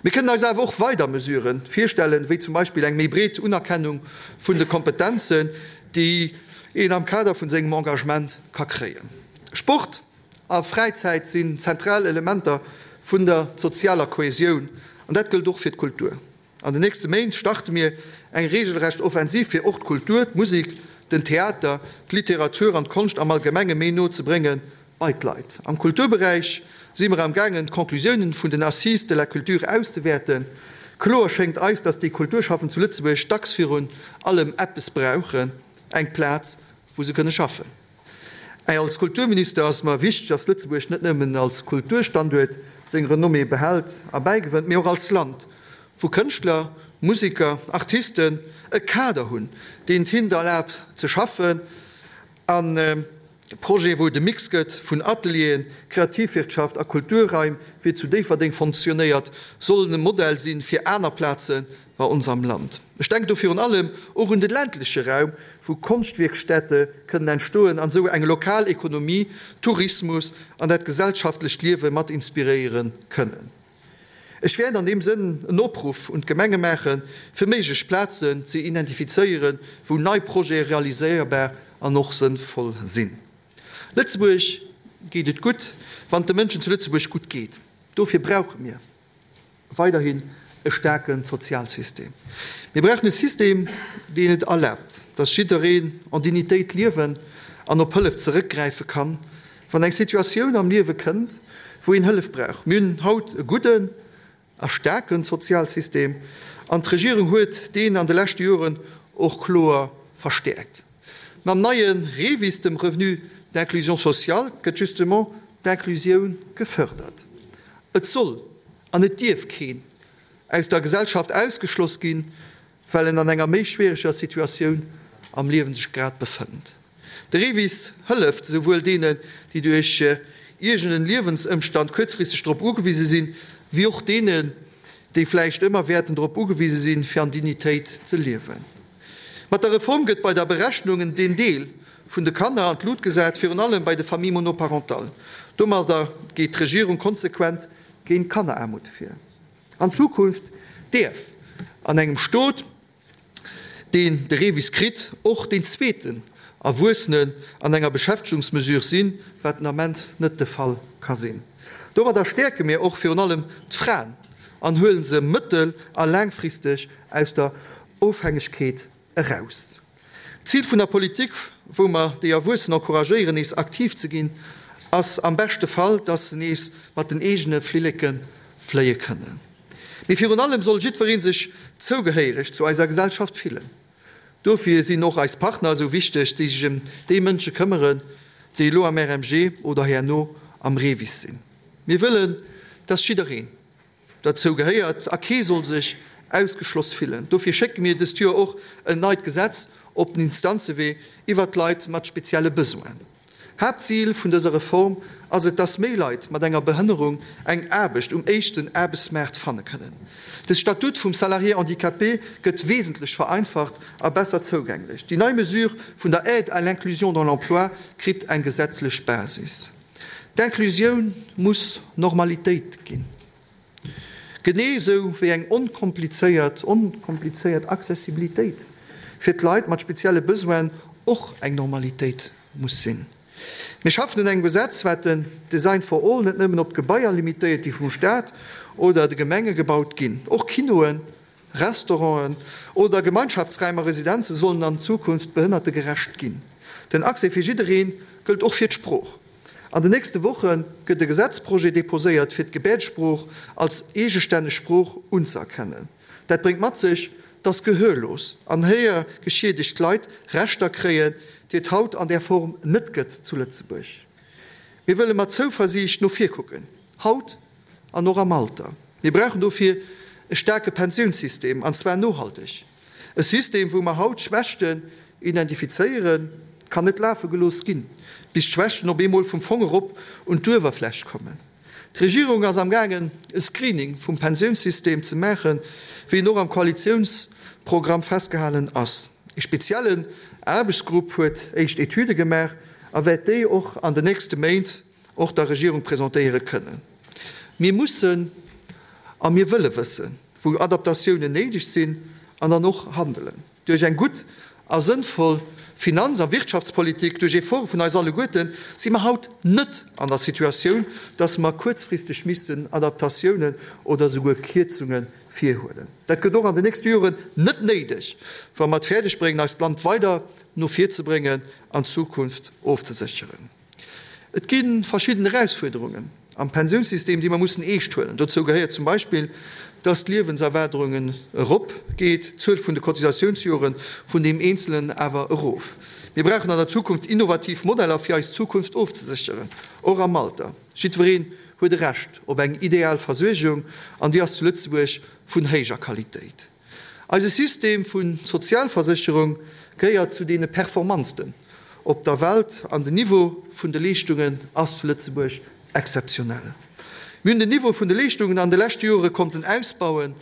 Mir kënnen eis awer och weider Mesurë virstellen, wéi zum Beispill eng méi breet Unerkennung vun de Kompetenzen, déi een am Kader vun sengem Engagement ka kréien. Sport a Fräizäit sinn zentral Elementer vun der sozialer Kohesioun, an dat gëllt och fir d'Kultur. An den nächste Méint starte mir eng regelrecht Offensiv, fir och d'Kultur, d'Musek, den Theater, d'Literatur an d'Konscht am Allgemenge méi no ze bréngen Bei d'Leit. Am Kulturberäich si mer am gaangen d'Conclusiounen vun den Assises de la culture auszewäerten. Kloer schéngt eis, dass déi Kulturschaffend zu Lëtzebuerg dacks virun allem eppes brauchen, eng Plaz wou se kënne schaffen. Als Kulturminister ass mer wichteg, dass Lëtzebuerg net nëmmen als Kulturstanduert seng Renommée behält a bäigewënnt, mee och als Land, wou Kënschtler, Museker, Artisten e Kader hunn, deen et hinnt erlaabt ze schaffen an Projet, wou et e Mix gëtt vun Atelieren, Kreativwirtschaft a Kulturraim, wéi et zu Déifferdeng fonctionnéiert, sollen e Modell si fir aner Plaze bei ons am Land. Ech denken do virun allem och un de ländleche Raum, wou Konschtwierkstätte kënnen entstoen an esou eng lokal Ekonomie, Tourismus an dat gesellschaftlecht Liewe mat inspiréiere kënnen. Ech wäert an deem Sënn en Opruff un d'Gemenge maachen, fir méiglech Plazen ze identifizéieren, wou nei Projete realiséierbar an och sënnvoll sinn. Lëtzebuerg geet et gutt, wann et de Mënschen zu Lëtzebuerg gutt geet. Dofir brauche mir weiderhin e staarke Sozialsystem. Mir brauchen e System, deen et erlaabt, dass jiddereen en Dignitéit liewen an op Hëllef zeréckgräife kann, Wann eng Situatioun am Liewe kënnt, wou een Hëllef brauch. Mir hunn haut e gudden a staarke Sozialsystem an d'Regierung huet deen an de leschte Joren och kloer verstäerkt. Mam neie REVIS, dem Revenu d'inclusion sociale, gëtt justement d'Inclusioun gefërdert. Et soll an et dierf keen aus der Gesellschaft ausgeschloss ginn, well en an enger méi schwiereger Situatioun am Liewen sech grad befënnt. De REVIS hëlleft esouwuel deenen, déi duerch iergend en Liewensëmstand kuerzfristeg drop ugewise sinn, wéi och deenen, déi vläicht ëmmer wäerten drop ugewise sinn, fir an Dignitéit ze liewen. Mat der Reform gëtt bei der Berechnung den Deel vun de Kanner an d'Lut gesat, virun allem bei de Familles monoparentales. Domadder geet d'Regierung konsequent géint Kanneraarmut vir. An Zukunft däerf an engem Stot, deen de REVIS kritt, och deen zweeten Erwuessenen an enger Beschäftegungsmesure sinn, wat den Ament net de Fall ka sinn. Domadder stäerke mir och virun allem d'Fraen an huele se mëttel a laangfristeg aus der Ofhängegkeet eraus. D'Zil vun der Politik, wou mer déi Erwuessen encouragéieren, nees aktiv ze ginn, ass am beschte Fall, dass se nees mat den eegene Flilleke fléie kënnen. Mee virun allem soll jiddweree sech zougehéiereg zu eiser Gesellschaft fillen. Dofir sinn och eis Partner esou wichteg, déi sech ëm déi Mënsche këmmeren, déi elo am RMG oder herno am REVIS sinn. Mir wëllen, dass jiddereen derzou gehéiert a kee soll sech ausgeschloss fillen. Dofir schécke mir dëst Joer och en neit Gesetz op den Instanzewee iwwert d'Leit mat spezielle Besoinen. Haaptzil vun dëser Reform ass et, dass méi Leit mat enger Behënnerung eng Aarbecht um éischten Aarbechtsmaart fanne kënnen. De Statut vum Salarié handicapé gëtt wesentlech vereinfacht a besser zougänglech. Déi nei Mesure vun der Aide à l'inclusion dans l'emploi kritt eng gesetzlech Basis. D'Inclusioun muss Normalitéit ginn, genee esou wéi eng onkomplizéiert onkomplizéiert Accessibilitéit fir d'Leit mat spezielle Besoinen och eng Normalitéit muss sinn. Mir schaffen un engem Gesetz, wat den Design for all net nëmmen op d'Gebaier limitéiert, déi vum Staat oder de Gemenge gebaut ginn. Och Kinoen, Restauranten oder Gemeinschaftsräim a Residenze sollen an Zukunft behënnertegerecht ginn. Den Accès fir jidderee gëllt och fir d'Sprooch. An den nächste Woche gëtt e Gesetzprojet deposéiert, fir d'Gebäerdesprooch als eegestänneg Sprooch unzëerkennen. Dat bréngt mat sech, dass gehörlos an héiergeschiedegt Leit Rechter kréien, déi et haut an där Form net gëtt zu Lëtzebuerg. Mir wëlle mat Zouversiicht no vir kucken, haut an och am Alter. Mir brauchen dofir e staarke Pensiounssystem, an zwar nohalteg. E System, wou mer haut Schwächten identifizéieren, kann net lafe gelooss ginn, bis d'Schwächten op eemol vum Fong erop un d'Uewerfläch kommen. D'Regierung ass amgaangen, e Screening vum Pensiounssystem ze maachen, wéi en och am Koalitiounsprogramm festgehalen ass. E speziellen Aarbechtsgrupp huet éischt Etüde gemaach a wäert déi och an den nächste Méint och der Regierung presentéiere kënnen. Mir mussen a mir wëlle wëssen, wou Adaptatiounen néideg sinn an dann och handelen. Duerch eng gutt a sënnvoll Finanz a Wirtschaftspolitik, duerch Efforte vun eis alleguerten, si mer haut net an der Situatioun, dass mer kuerzfristeg missten Adaptatiounen oder souguer Kierzunge virhuelen. Dat gëtt och an den nächste Joren net néideg, wa mer et fäerdeg bréngen, eist Land weider no vir ze bréngen an d'Zukunft ofzesécheren. Et gi verschidden Erausfuerderungen am Pensiounssystem, déi mer mussen eescht huelen. Dozou gehéiert zum Beispill, dass d'Liewenserwaardungen erop geet, d'Zuel vun de Cotisatiounsjore vun deem Eenzelen awer erof. Mir brauchen an der Zukunft innovativ Modeller, fir eis Zukunft ofzesécheren, och am Alter. Jiddwereen huet e Recht op eng ideal Versuergung, an déi ass zu Lëtzebuerg vun héijer Qualitéit. Eise System vu Sozialversécherung gehéiert zu deene performantsten op der Welt an den Niveau vun de Leeschtungen ass zu Lëtzebuerg exzeptionell. Mir hunn den Niveau vun de Leeschtungen an de leschte Jore konnten ausbauen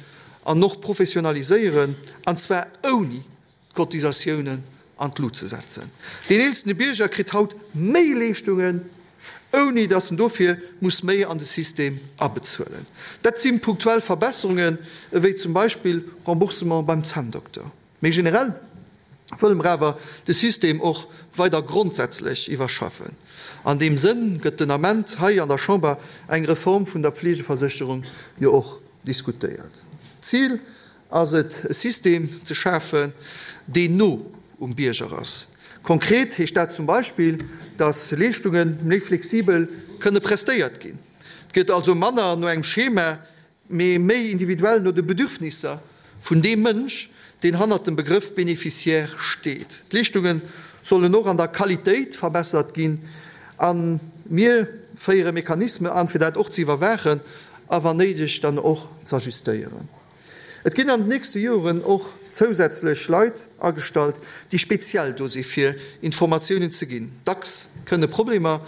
an och professionaliséieren, an zwar ouni d'Cotisatiounen an d'Lut ze setzen. Deen eelsten Bierger kritt haut méi Leeschtungen, ouni datt en dofir muss méi an de System abezuelen. Dat si punktuell Verbesserungen, ewéi zum Beispill Remboursement beim Zänndokter. Méi generell wëlle mer awer de System och weider grondsätzlech iwwerschaffen. An deem Sënn gëtt den Ament hei an der Chamber eng Reform vun der Pflegeversécherung jo och diskutéiert. D'Zil ass et, e System ze schafen, deen no um Bierger ass. Konkret heescht dat zum Beispill, dass Leeschtunge méi flexibel kënne prestéiert ginn. Et gëtt also manner no engem Schema, mee méi individuell no de Bedürfnisser vun deem Mënsch, deen hannert dem Begrëff Bénéficiaire steet. D'Leeschtunge sollen och an der Qualitéit verbessert ginn a mir féiere Mechanisme an, fir dat och ze iwwerwaachen a wann néideg dann och z'ajustéieren. Et ginn an den nächste Joren och zousätzlech Leit agestallt, déi speziell do si fir Informatiounen ze ginn. Dacks kënne Problemer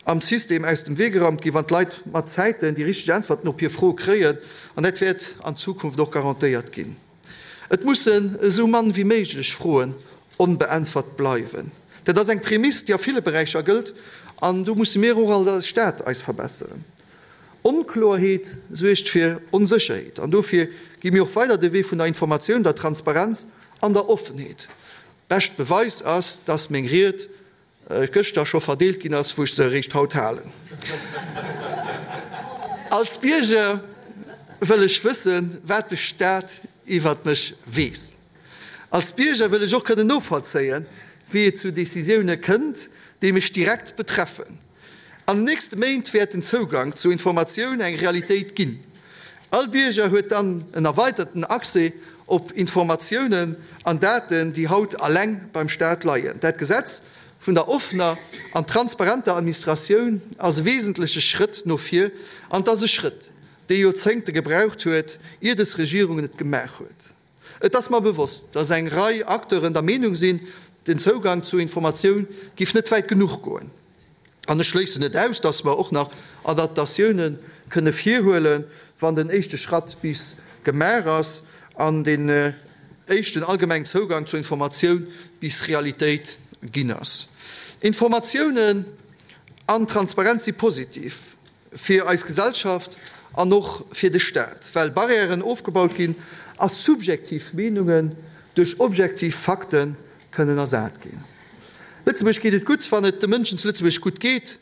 am System aus dem Wee geraumt ginn, wann d'Leit mat Zäiten déi richteg Äntwerten op hir Froe kréien, an dat wäert an Zukunft och garantéiert ginn. Et mussen esou mann wéi méiglech Froen onbeäntwert bleiwen. Dat ass eng Prämiss, déi a ville Beräicher gëllt, an do musse mir och als Staat eis verbesseren. Onkloerheet suergt fir Onsécherheet, an dofir gi mir och weider de Wee vun der Informatioun, der Transparenz an der Offenheet. Bescht Beweis ass, dass meng Ried gëschter scho verdeelt ginn ass, wou ech se eréischt haut halen. Als Bierger wëll ech wëssen, wat de Staat iwwert mech weess. Als Bierger wëll ech och kënnen novollzéien, wéi et zu Decisioune kënnt, déi mech direkt betreffen. An den nächste Méint wäert den Zougank zu Informatioun eng Realitéit ginn. All Bierger huet dann en erweiterten Accès op Informatiounen an Daten, déi haut alleng beim Staat leien. Dat Gesetz vun der offener an transparenter Administratioun ass e wesentleche Schrëtt no vir an et ass e Schrëtt, dee Joerzéngte gebraucht huet, ier des Regierung et gemaach huet. Et ass mer bewosst, dass eng Rei Acteuren der Meenung sinn, den Zougang zu Informatioun giff net wäit genuch goen. An ech schléissen net aus, dass mer och nach Adaptatioune kënne virhuelen, wann den éischte Schratt bis gemaach ass an den éischten allgemengen Zougang zur Informatioun bis Realitéit ginn ass. Informatiounen an Transparenz si positiv. Fir eis Gesellschaft an och fir de Staat, well Barrièren ofgebaut ginn a subjektiv Meenungen duerch objektiv Fakte kënnen ersat ginn. Lëtzebuerg geet et gutt, wann et de Mënschen zu Lëtzebuerg gutt geet.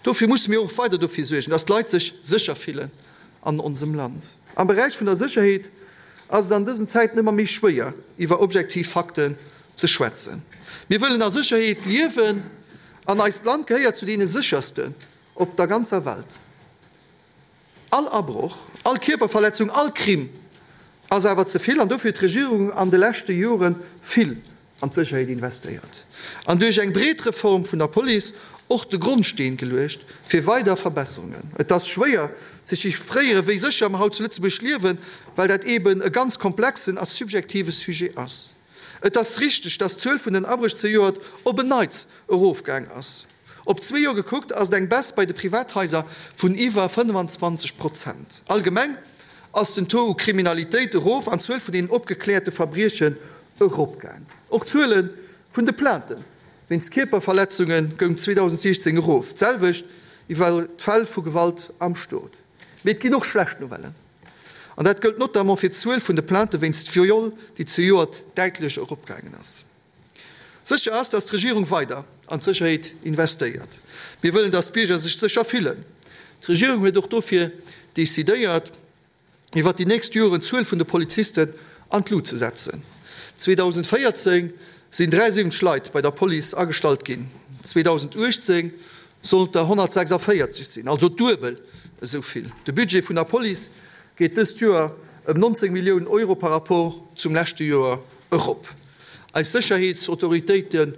Dofir musse mir och weider dofir suergen, dass d'Leit sech sécher fillen an onsem Land. Am Beräich vun der Sécherheet ass et an dësen Zäiten ëmmer méi schwéier, iwwer objektiv Fakten ze schwätzen. Mir wëllen a Sécherheet liewen an eist Land gehéiert zu deene séchersten Op der ganzer Welt. All Abroch, all Kierperverletzung, all Crime ass awer ze vill an dofir huet d'Regierung an de leschte Jore vill an d'Sécherheet investéiert an duerch eng breet Reform vun der Police och de Grondsteen geluecht fir weider Verbesserungen. Et ass schwéier ze chiffréieren, wéi sécher mer haut zu Lëtzebuerg liewen, well dat eeben e ganz komplexen a subjektive Sujet ass. Et ass richteg, dass d'Zuel vun den Abréch zejoert op en Neits erofgaang ass. Op zwee Joer gekuckt ass et eng Baisse bei de Privathaiser vun iwwer 25 Prozent. Allgemeng ass den Taux u Kriminalitéit erof an d'Zuel vun den opgekläerte Verbriechen eropgaang. Och d'Zuele vun de Plainte wéinst Kierperverletzunge goung 2016 erof, d'selwecht iwwer d'Fäll vu Gewalt am Stot. Mee et ginn och schlecht Nouvellen. An dat gëllt notamment fir d'Zuel vun de Plainte wéinst Viol, déi zejoert däitlech eropgaangen ass. Sécher ass, datt d'Regierung weider an d'Sécherheet investéiert. Mir wëllen, datt d'Bierger sech sécher fillen. D'Regierung huet och dofir decidéiert, iwwert déi nächst Joren d'Zuel vun de Polizisten an d'Lut ze setzen. 2014 sinn 73 Leit bei der Police agestallt ginn, 2018 sollt der 146 sinn, also duebel esou vill. De Budget vun der Police geet dëst Joer ëm 19 Milliounen Euro par rapport zum leschte Joer erop. Eis Sécherheetsautoritéite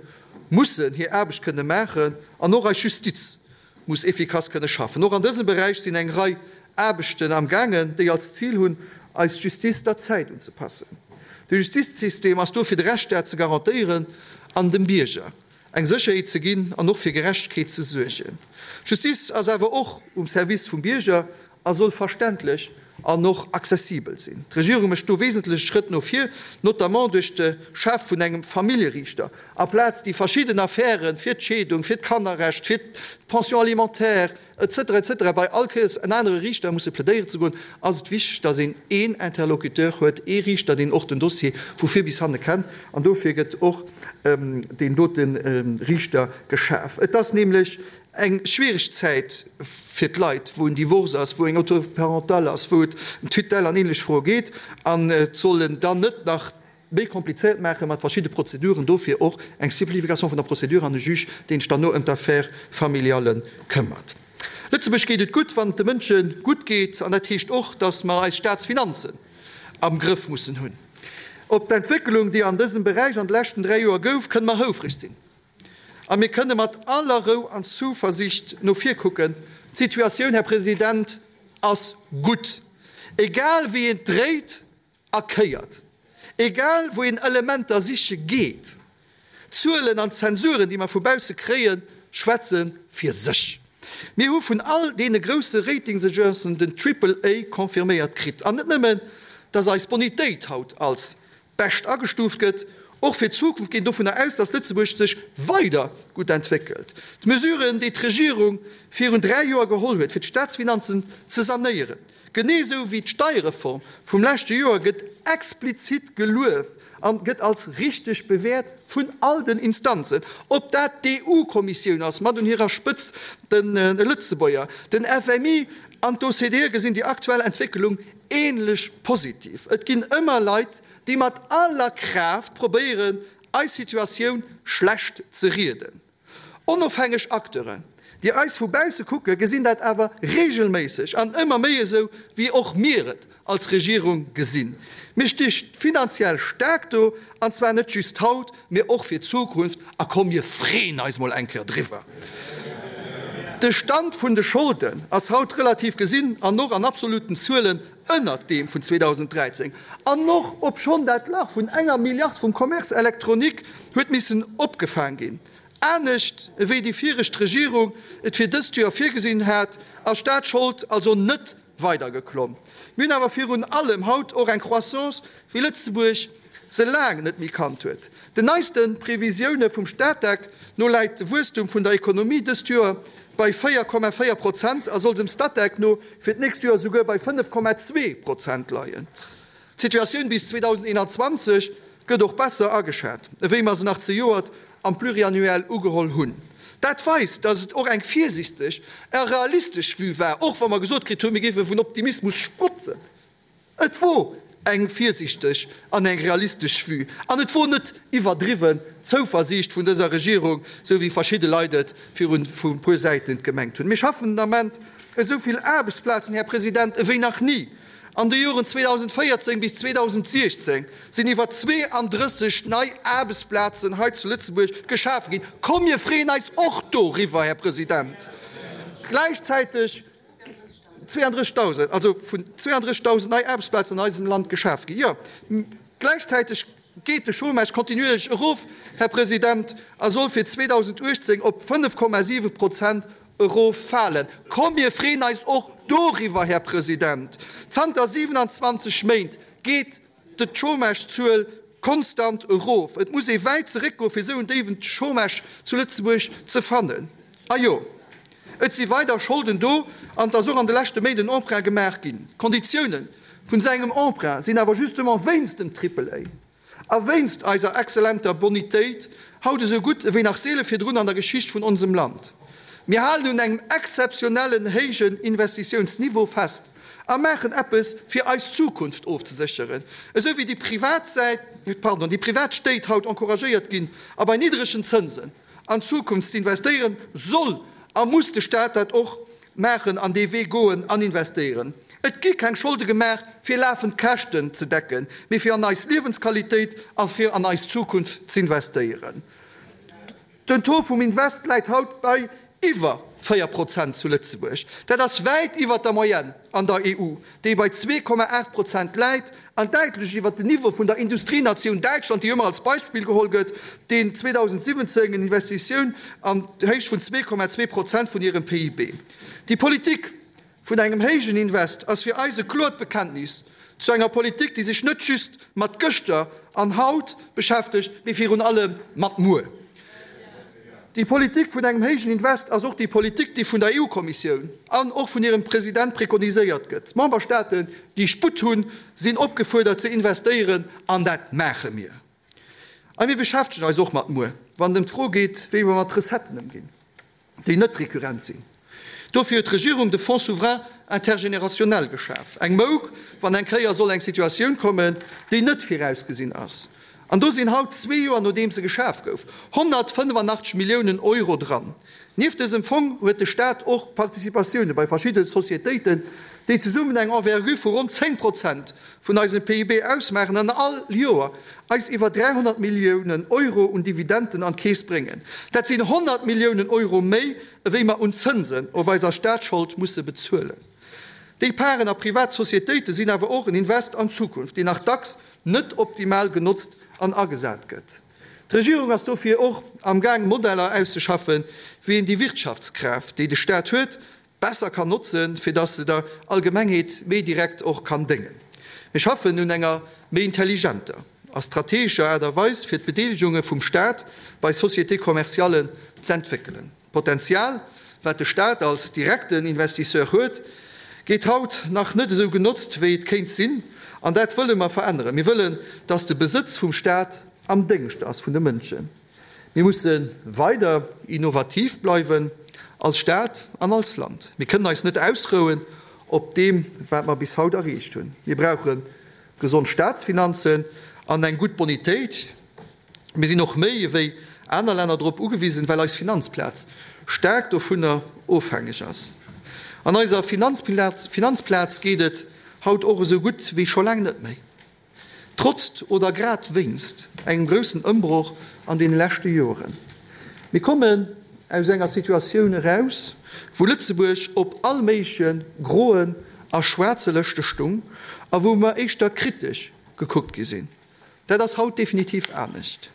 mussen hir Aarbecht kënne maachen an och eis Justiz muss efficace kënne schaffen. Och an dësem Beräich sinn eng Rei Aarbechten am gaangen, déi als Zil hunn, eis Justiz der Zäit unzepassen. De Justizsystem ass do fir de Rechtsstaat ze garantéieren an dem Bierger eng Sécherheet ze ginn an och fir Gerechtegkeet ze suergen. D'Justiz ass awer och um Service vum Bierger a soll verständlech an och accessibel sinn. D'Regierung mécht do wesentlech Schrëtt no vir, notamment duerch de Schaf vun engem Familljeriichter, aplaz déi verschidden Affären fir d'Scheedung, fir d'Kannerrecht, fir d'Pension alimentaire, etc. Etc. Bei all Kéiers en anere Riichter musse plädéieren ze goen, ass et wichteg, dass een een Interlocuteur huet, ee Riichter, deen och den Dossier vu vir bis hanne kennt. An dofir gëtt och deen dote Riichter geschaf. Et ass nämlech eng schwiereg Zäit fir d'Leit, wou en Divorce ass, wou eng Autorité parentale ass, wou et ëm Tutelle an ähnlech Froe geet. An et soll en dann net nach méi komplizéiert maache mat verschidde Prozeduren, dofir och eng Simplification vun der Procédure an e Juge, deen sech dann no ëm d'Affaire familiale këmmert. Lëtzebuerg geet et gutt, wann et de Mënsche gutt geet, an dat heescht och, datt mer eis Staatsfinanzen am Grëff mussen hunn. Op d'Entwécklung, déi an dësem Beräich an de leschten 3 Joer gouf, kënne mer houfreg sinn a mir kënne mat aller Rou an Zuversicht no vir kucken. D'Situatioun, Här President, ass gutt, egal wéi een et dréit. A kéiert. Egal wou een Elementer siche geet, d'Zuelen an d'Zensuren, déi mer vu bausse kréien, schwätze fir sech. Mir hu vun all deene grousse Ratingsagencen den Triple A confirméiert kritt. An net nëmmen, dass eis Bonitéit haut als bescht agestuuft gëtt, och fir d'Zukunft geet een dovunner aus, dass Lëtzebuerg sech weider gutt entwéckelt. D'Mesuren, déi d'Regierung virun 3 Joer geholl huet, fir d'Staatsfinanzen ze sanéieren, Genee esou wéi d'Steierreform vum leschte Joer gëtt explizit gelueft an gëtt als richteg bewäert vun all den Instanzen, ob dat d'EU-Kommissioun ass, mat un hirer Spëtz de Lëtzebuerger, den FMI an d'OCDE gesinn déi aktuell Entwécklung ähnlech positiv. Et ginn ëmmer Leit, déi mat aller Kraaft probéieren, eis Situatioun schlecht ze rieden. Onofhängeg Acteuren, déi eis vu bausse kucken, gesinn dat awer reegelméisseg an ëmmer méi esou, wéi och mir et als Regierung gesinn. Mir sti finanziell staark do, an zwar net just haut, mee och fir d'Zukunft. A komm, mir freeën eis mol eng Kéier driwwer! De Stand vun de Scholden ass haut relativ gesinn an och an absoluten Zuelen ënnert deem vun 2013, an och obschonn dat Lach vun enger Milliard vum Commerce électronique huet missen opgefaang ginn. Anescht ewéi déi viregt Regierung et fir dëst Joer virgesinn hat, ass d'Staatsschold also net weider geklomm. Mir hunn awer virun allem haut och eng Croissance, wéi Lëtzebuerg se laang net méi kannt huet. Den neiste Previsioune vum Statec no läit de Wuesstum vun der Ekonomie dëst Joer bei 4,4 Prozent a soll dem Statec no fir d'nächst Joer souguer bei 5,2 Prozent leien. D'Situatioun bis 2021 gëtt och besser ageschat, ewéi mer se nach zejoert am Pluriannuel ugeholl hunn. Dat weist, datt et och eng virsichteg a realistesch Vue war, och wa mer gesot kritt hunn, mir géife vun Optimismus sprotzen. Et wor eng virsichteg an eng realistesch Vue an et wor net iwwerdriwwen Zouversiicht vun dëser Regierung, sou wéi verschidde Leit et virun e puer Säiten gemengt hunn. Mir schaffen den Ament esou vill Aarbechtsplazen, Här President, ewéi nach ni. An de Joren 2014 bis 2016 sinn iwwer 32 nei Aarbechtsplazen hei zu Lëtzebuerg geschafe ginn. Komm, mir freeën eis och doriwwer, Här President. Gläichzäiteg 32.000, also vun 32.000 nei Aarbechtsplazen an eisem Land geschaf ginn. Jo, gläichzäiteg geet de Chômage kontinuierlech erof, Här President, a soll fir 2018 op 5,7 Prozent eroffalen. Komm, mir freeën eis och doriwwer, Här President. Zanter 27 Méint geet d'Chômagezuel konstant erof. Et muss ee wäit zeréckgoe fir esou en déiwen Chômage zu Lëtzebuerg ze fannen. A jo, et si weider Scholden do an et ass och an de leschte Méint en Emprunt gemaach ginn. D'Konditioune vun esou engem Emprunt sinn awer justement wéinst dem Triple-A a wéinst eiser exzellenter Bonitéit haut esou gutt ewéi nach seele virdrun an der Geschicht vun onsem Land. Mir halen un engem exzeptionellen héijen Investitiounsniveau fest a maachen eppes fir eis Zukunft ofzesécheren, esou wéi déi privat Säit, pardon, déi privat Stéit haut encouragéiert ginn a bei niddregen Zënsen an d'Zukunft ze investéieren, soll a muss de Staat dat och maachen an dee Wee goen an investéieren. Et gi keng Scholde gemaach fir lafend Käschten ze decken, mee fir an eis Liewensqualitéit a fir an eis Zukunft z'investéieren. Den Taux vum Invest läit haut bei iwwer 4 Prozent zu Lëtzebuerg. Dat ass wäit iwwer der Moyenne an der EU, déi bei 2,8 Prozent läit, an däitlech iwwer den Niveau vun der Industrienatioun Däitschland, déi ëmmer als Beispill geholl gëtt, deen 2017 en Investitioun an Héicht vun 2,2 Prozent vun hirem PIB. Déi Politik vun engem héijen Invest ass fir eis e kloert Bekenntnis zu enger Politik, déi sech net just mat gëschter an haut beschäftegt, mee virun allem mat muer. Déi Politik vun engem héijen Invest ass och déi Politik, déi vun der EU-Kommissioun an och vun hirem President prekoniséiert gëtt. D'Memberstaaten, déi Sputt hunn, sinn opgefuerdert ze investéieren, an dat maache mir. A mir beschäftegen eis och mat muer, wann et ëm d'Fro geet, wéi mer mat Recetten ëmginn. déi net rekurrent sinn. Dofir huet d'Regierung de Fonds souverain intergénérationnel geschaf, eng Mouk, wann eng Kéier soll eng Situatioun kommen, déi net virausgesinn ass. An do sinn haut, zwee Joer nodeems e geschaf gouf, 185 Milliounen Euro dran. Nieft dësem Fong huet de Staat och Participatioune bei verschidde Societéiten, déi zesummen eng Envergure vu ronn 10 Prozent vun eisem PIB ausmaachen an all Joer eis iwwer 300 Milliounen Euro un Dividenden an d'Keess bréngen. Dat sinn 100 Milliounen Euro méi, ewéi mer un Zënsen op eiser Staatsschold musse bezuelen. Déi Parten a privat Societéite sinn awer och en Invest an d'Zukunft, deen nach dacks net optimal genotzt an agesat gëtt. D'Regierung ass dofir och am Gaang Modeller auszeschaffen, wéi een déi Wirtschaftskraaft, déi de Staat huet, besser kann notzen, fir dass se der Allgemengheet méi direkt och kann déngen. Mir schaffen un enger méi intelligenter a strategescher Aart a Weis, fir d'Bedeelegunge vum Staat bei Sociétés commerciales z'entwéckelen. D'Potenzial, wat de Staat als direkten Investisseur huet, gétt haut nach net esou genotzt, wéi et kéint sinn, an dat wëlle mer veränneren. Mir wëllen, dass de Besëtz vum Staat am Déngscht ass vun de Mënschen. Mir musse weider innovativ bleiwen, als Staat an als Land. Mir kënnen eis net ausrouen op deem, wat mer bis haut erreecht hunn. Mir brauche gesond Staatsfinanzen an eng gutt Bonitéit. Mir sinn och méi ewéi aner Länner drop ugewisen, well eis Finanzplaz staark dovunner ofhängeg ass. An eiser Finanzplaz geet et haut och esou gutt wéi scho laang net méi. Trotzt oder grad wéinst engem groussen Ëmbroch an deene leschte Joren. Mir kommen aus enger Situatioun eraus, wou Lëtzebuerg op all méigleche groen a schwaarze Lëschte stung a wou mer éischter kritesch gekuckt gi sinn. Dat ass haut definitiv anescht.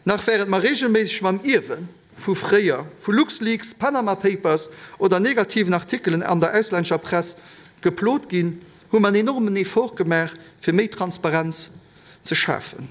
Nach wärend mer reegelméisseg mam Ierwe vu fréier, vu LuxLeaks, Panama Papers oder negativen Artikelen an der auslännescher Press geplot ginn, hu mer en enormen Effort gemaach, fir méi Transparenz ze schafen.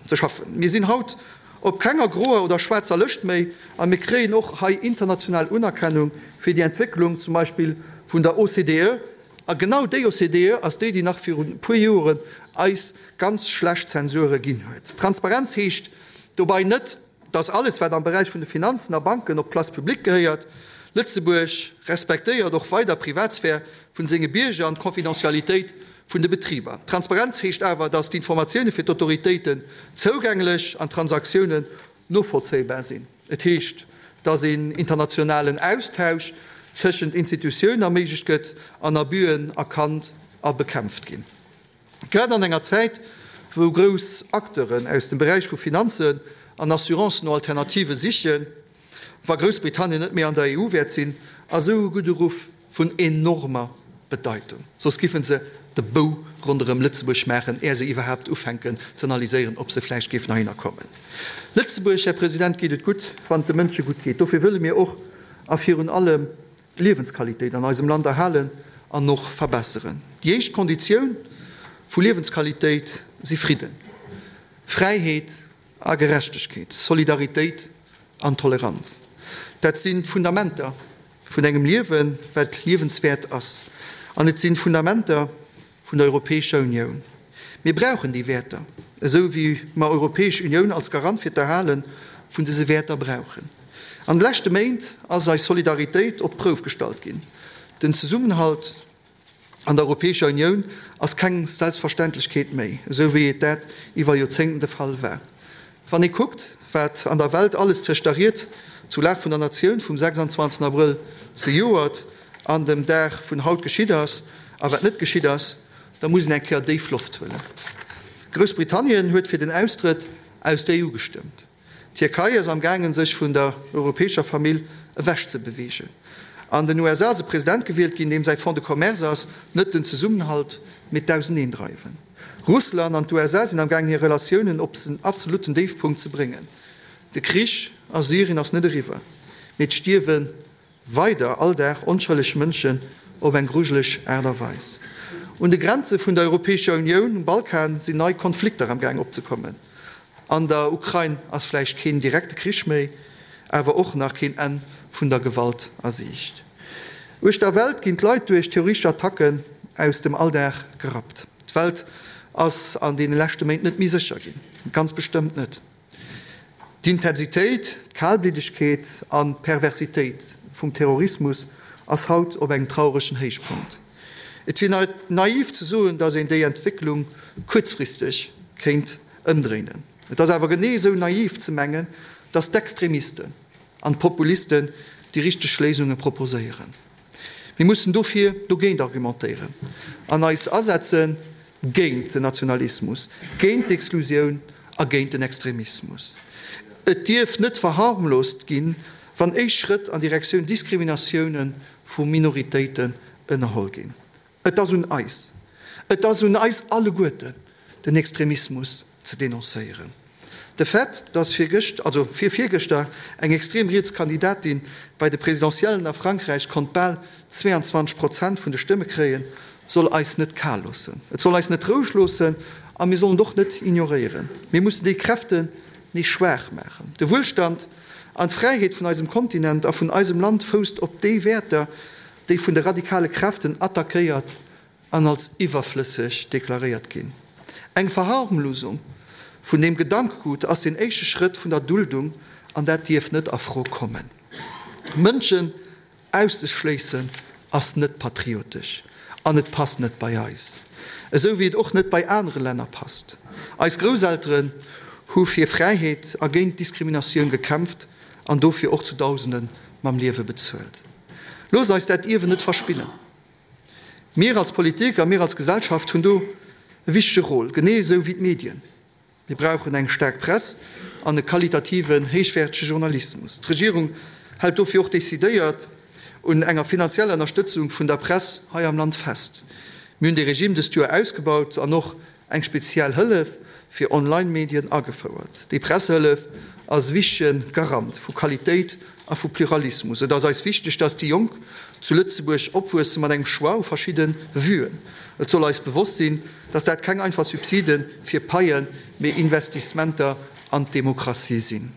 Mir sinn haut op kenger groer oder schwaarzer Lëscht méi a mir kréien och hei international Unerkennung fir déi Entwécklung, zum Beispill vun der OCDE. A genau déi OCDE ass déi, déi nach virun e puer Joren eis ganz schlecht Zensure ginn huet. Transparenz heescht dobei net, dass alles, wat am Beräich vun de Finanzen a Banken op d'Place publique gehéiert. Lëtzebuerg respektéiert och weider d'Privatsphär vun senge Bierger an d'Confidentialitéit vun de Betriber. Transparenz heescht awer, dass d'Informatioune fir d'Autoritéiten zougänglech an d'Transaktiounen novollzéibar sinn. Et heescht, dass een internationalen Austausch tëschent Institutiounen erméiglecht gëtt an Abüen erkannt a bekämpft ginn. Grad an enger Zäit, wou grouss Acteuren aus dem Beräich vu Finanzen an Assurancen no Alternative sichen, wa Groussbritannien net méi an der EU wäert sinn, ass esou e gudde Ruff vun enormer Bedeitung. Soss giffen se de Bou ronderëm Lëtzebuerg maachen, är se iwwerhaapt ufänken ze analyséieren, ob se vläicht géifen heihinner kommen. Lëtzebuerg, Här President, geet et gutt, wann et de Mënsche gutt geet. Dofir wëlle mir och a virun allem d'Liewensqualitéit an eisem Land erhalen an och verbesseren. Déi éischt Konditioun vu Liewensqualitéit si Fridden, Fräiheet a Gerechtegkeet, Solidaritéit an Toleranz. Dat sinn d'Fundamenter vun engem Liewen, wat liewenswäert ass. An et sinn d'Fundamenter vun der Europäescher Unioun. Mir brauchen déi Wäerter, esou wéi mer Europäesch Unioun als Garant fir d'Erhale vun dëse Wäerter brauchen. An de leschte Méint ass eis Solidaritéit op d'Prouf gestallt ginn. Den Zesummenhalt an der Europäescher Unioun ass keng Selbstverständlechkeet méi, esou wéi et dat iwwer Joerzéngten de Fall war. Wann ee kuckt, wat an der Welt alles tëscht der Ried zur Lag vun der Natioun vum 26 Abrëll zejoert an dem Dag vun haut geschitt ass a wat net geschitt ass, da muss een eng Kéier déif Loft huelen. Groussbritannien huet fir den Austrëtt aus der EU gestëmmt. D'Tierkei ass am gaangen, sech vun der europäescher Famill ewech ze beweegen. An den USA ass e President gewielt ginn, deem säi Fonds de commerce ass, net den Zesummenhalt, mee d'Auseneendreiwen. Russland an d'USA sinn am gaangen hir Relatiounen op en absolutten Déifpunkt ze bréngen. De Krich a Syrien ass net eriwwer, mee et stierwe weider all Dag onschëlleg Mënschen op eng grujeleg Aart a Weis. Un de Grenze vun der Europäescher Unioun, um Balkan, sinn nei Konflikter am gaang opzekommen. An der Ukrain ass vläicht keen direkte Krich méi, awer och nach keen Enn vun der Gewalt a Siicht. Uechter Welt ginn d'Leit duerch terroristesch Attacken aus dem Alldag gerappt. D'Welt ass an deene leschte Méint net méi sécher ginn, ganz bestëmmt net. D'Intensitéit, d'Kalbliddegkeet an d'Perversitéit vum Terrorismus ass haut op engem trauregen Héichpunkt. Et wier naiv ze soen, datt een déi Entwécklung kuerzfristeg kéint ëmdréinen. Et ass awer genee esou naiv ze mengen, datt d'Extremisten an d'Populisten déi richteg Léisunge proposéieren. Mir mussen dofir dogéint argumentéieren an eis asetze géint den Nationalismus, géint d'Exklusioun a géint den Extremismus. Et dierf net verharmlost ginn, wann éischt Schrëtt an Direktioun Diskriminatioune vu Minoritéiten ënnerholl ginn. Et ass un eis, et ass un eis alleguerten, den Extremismus ze denoncéieren. De Fait, dass virgëscht, also virvirgëschter, eng extrem riets Kandidatin bei de Presidentiellen a Frankräich konnt bal 22 Prozent vun de Stëmme kréien, soll eis net kal loossen. Et soll eis net roueg loossen a mir sollen et och net ignoréieren. Mir mussen déi Kräften nees schwaach maachen. De Wuelstand an d'Fräiheet vun eisem Kontinent a vun eisem Land fousst op déi Wäerter, déi vun de radikale Kräften attackéiert an als iwwerflësseg deklaréiert ginn. Eng Verharmlosung vun deem Gedankegut ass den éischte Schrëtt vun der Duldung an dat dierf net a Fro kommen. Mënschen auszeschléissen ass net patriotesch an et passt net bei eis, esou wéi et och net bei anere Länner passt. Eis Grousselteren hu fir Fräiheet a géint Diskriminatioun gekämpft an dofir och zu Dausende mam Liewe bezuelt. Loosst eis dat Ierwen net verspillen. Mir als Politik a mir als Gesellschaft hunn do e wichtege Rôle, genee esou wéi d'Medien. Mir brauchen eng staark Press an e qualitativen, héichwäertege Journalismus. D'Regierung hält dofir och decidéiert un enger finanzieller Ënnerstëtzung vun der Press hei am Land fest. Mir hunn dee Regime dëst Joer ausgebaut an och eng speziell Hëllef fir Online-Medien agefouert. Déi Pressehëllef ass e wichtege Garant vu Qualitéit a vu Pluralismus. Et ass eis wichteg, dass déi Jonk zu Lëtzebuerg opwuesse mat engem Choix u verschidde Vuen. Et soll eis bewosst sinn, dass dat keng einfach Subside fir Paien, mee Investissementer an d'Demokratie sinn.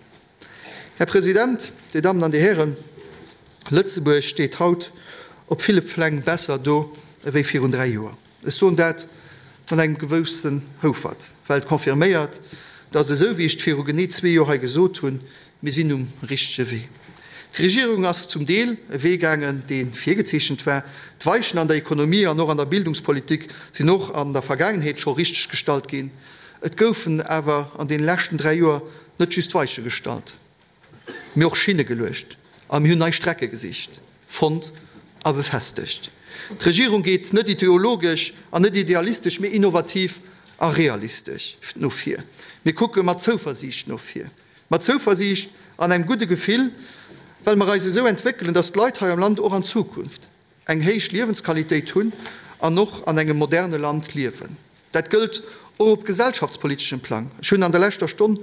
Här President, Dir Dammen an Dir Hären, Lëtzebuerg steet haut op ville Pläng besser do ewéi virun 3 Joer. Ech soen dat mat engem gewëssen Houfert, well et confirméiert, dass, esou wéi ech et viru genee zwee Joer hei gesot hunn, mir sinn um richtege Wee. D'Regierung ass zum Deel e Wee gaangen, dee virgezeechent war. D'Weichen an der Ekonomie an och an der Bildungspolitik sinn och an der Vergaangenheet scho richteg gestallt ginn. Et goufen awer an deene leschten 3 Joer net just Weiche gestallt. Mee och Schinne geluecht a mir hunn nei Strecke gesicht, fonnt a befestegt. D'Regierung geet net ideologesch an net idealistesch, mee innovativ a realistesch no vir. Mir kucke mat Zouversiicht no vir. Mat Zouversiicht an engem gudde Gefill, well mer eis esou entwéckelen, datt d'Leit hei am Land och an Zukunft eng héich Liewensqualitéit hunn an och an engem moderne Land liewen. Dat gëllt och op gesellschaftspoliteschem Plang. Ech hunn an der leschter Stonn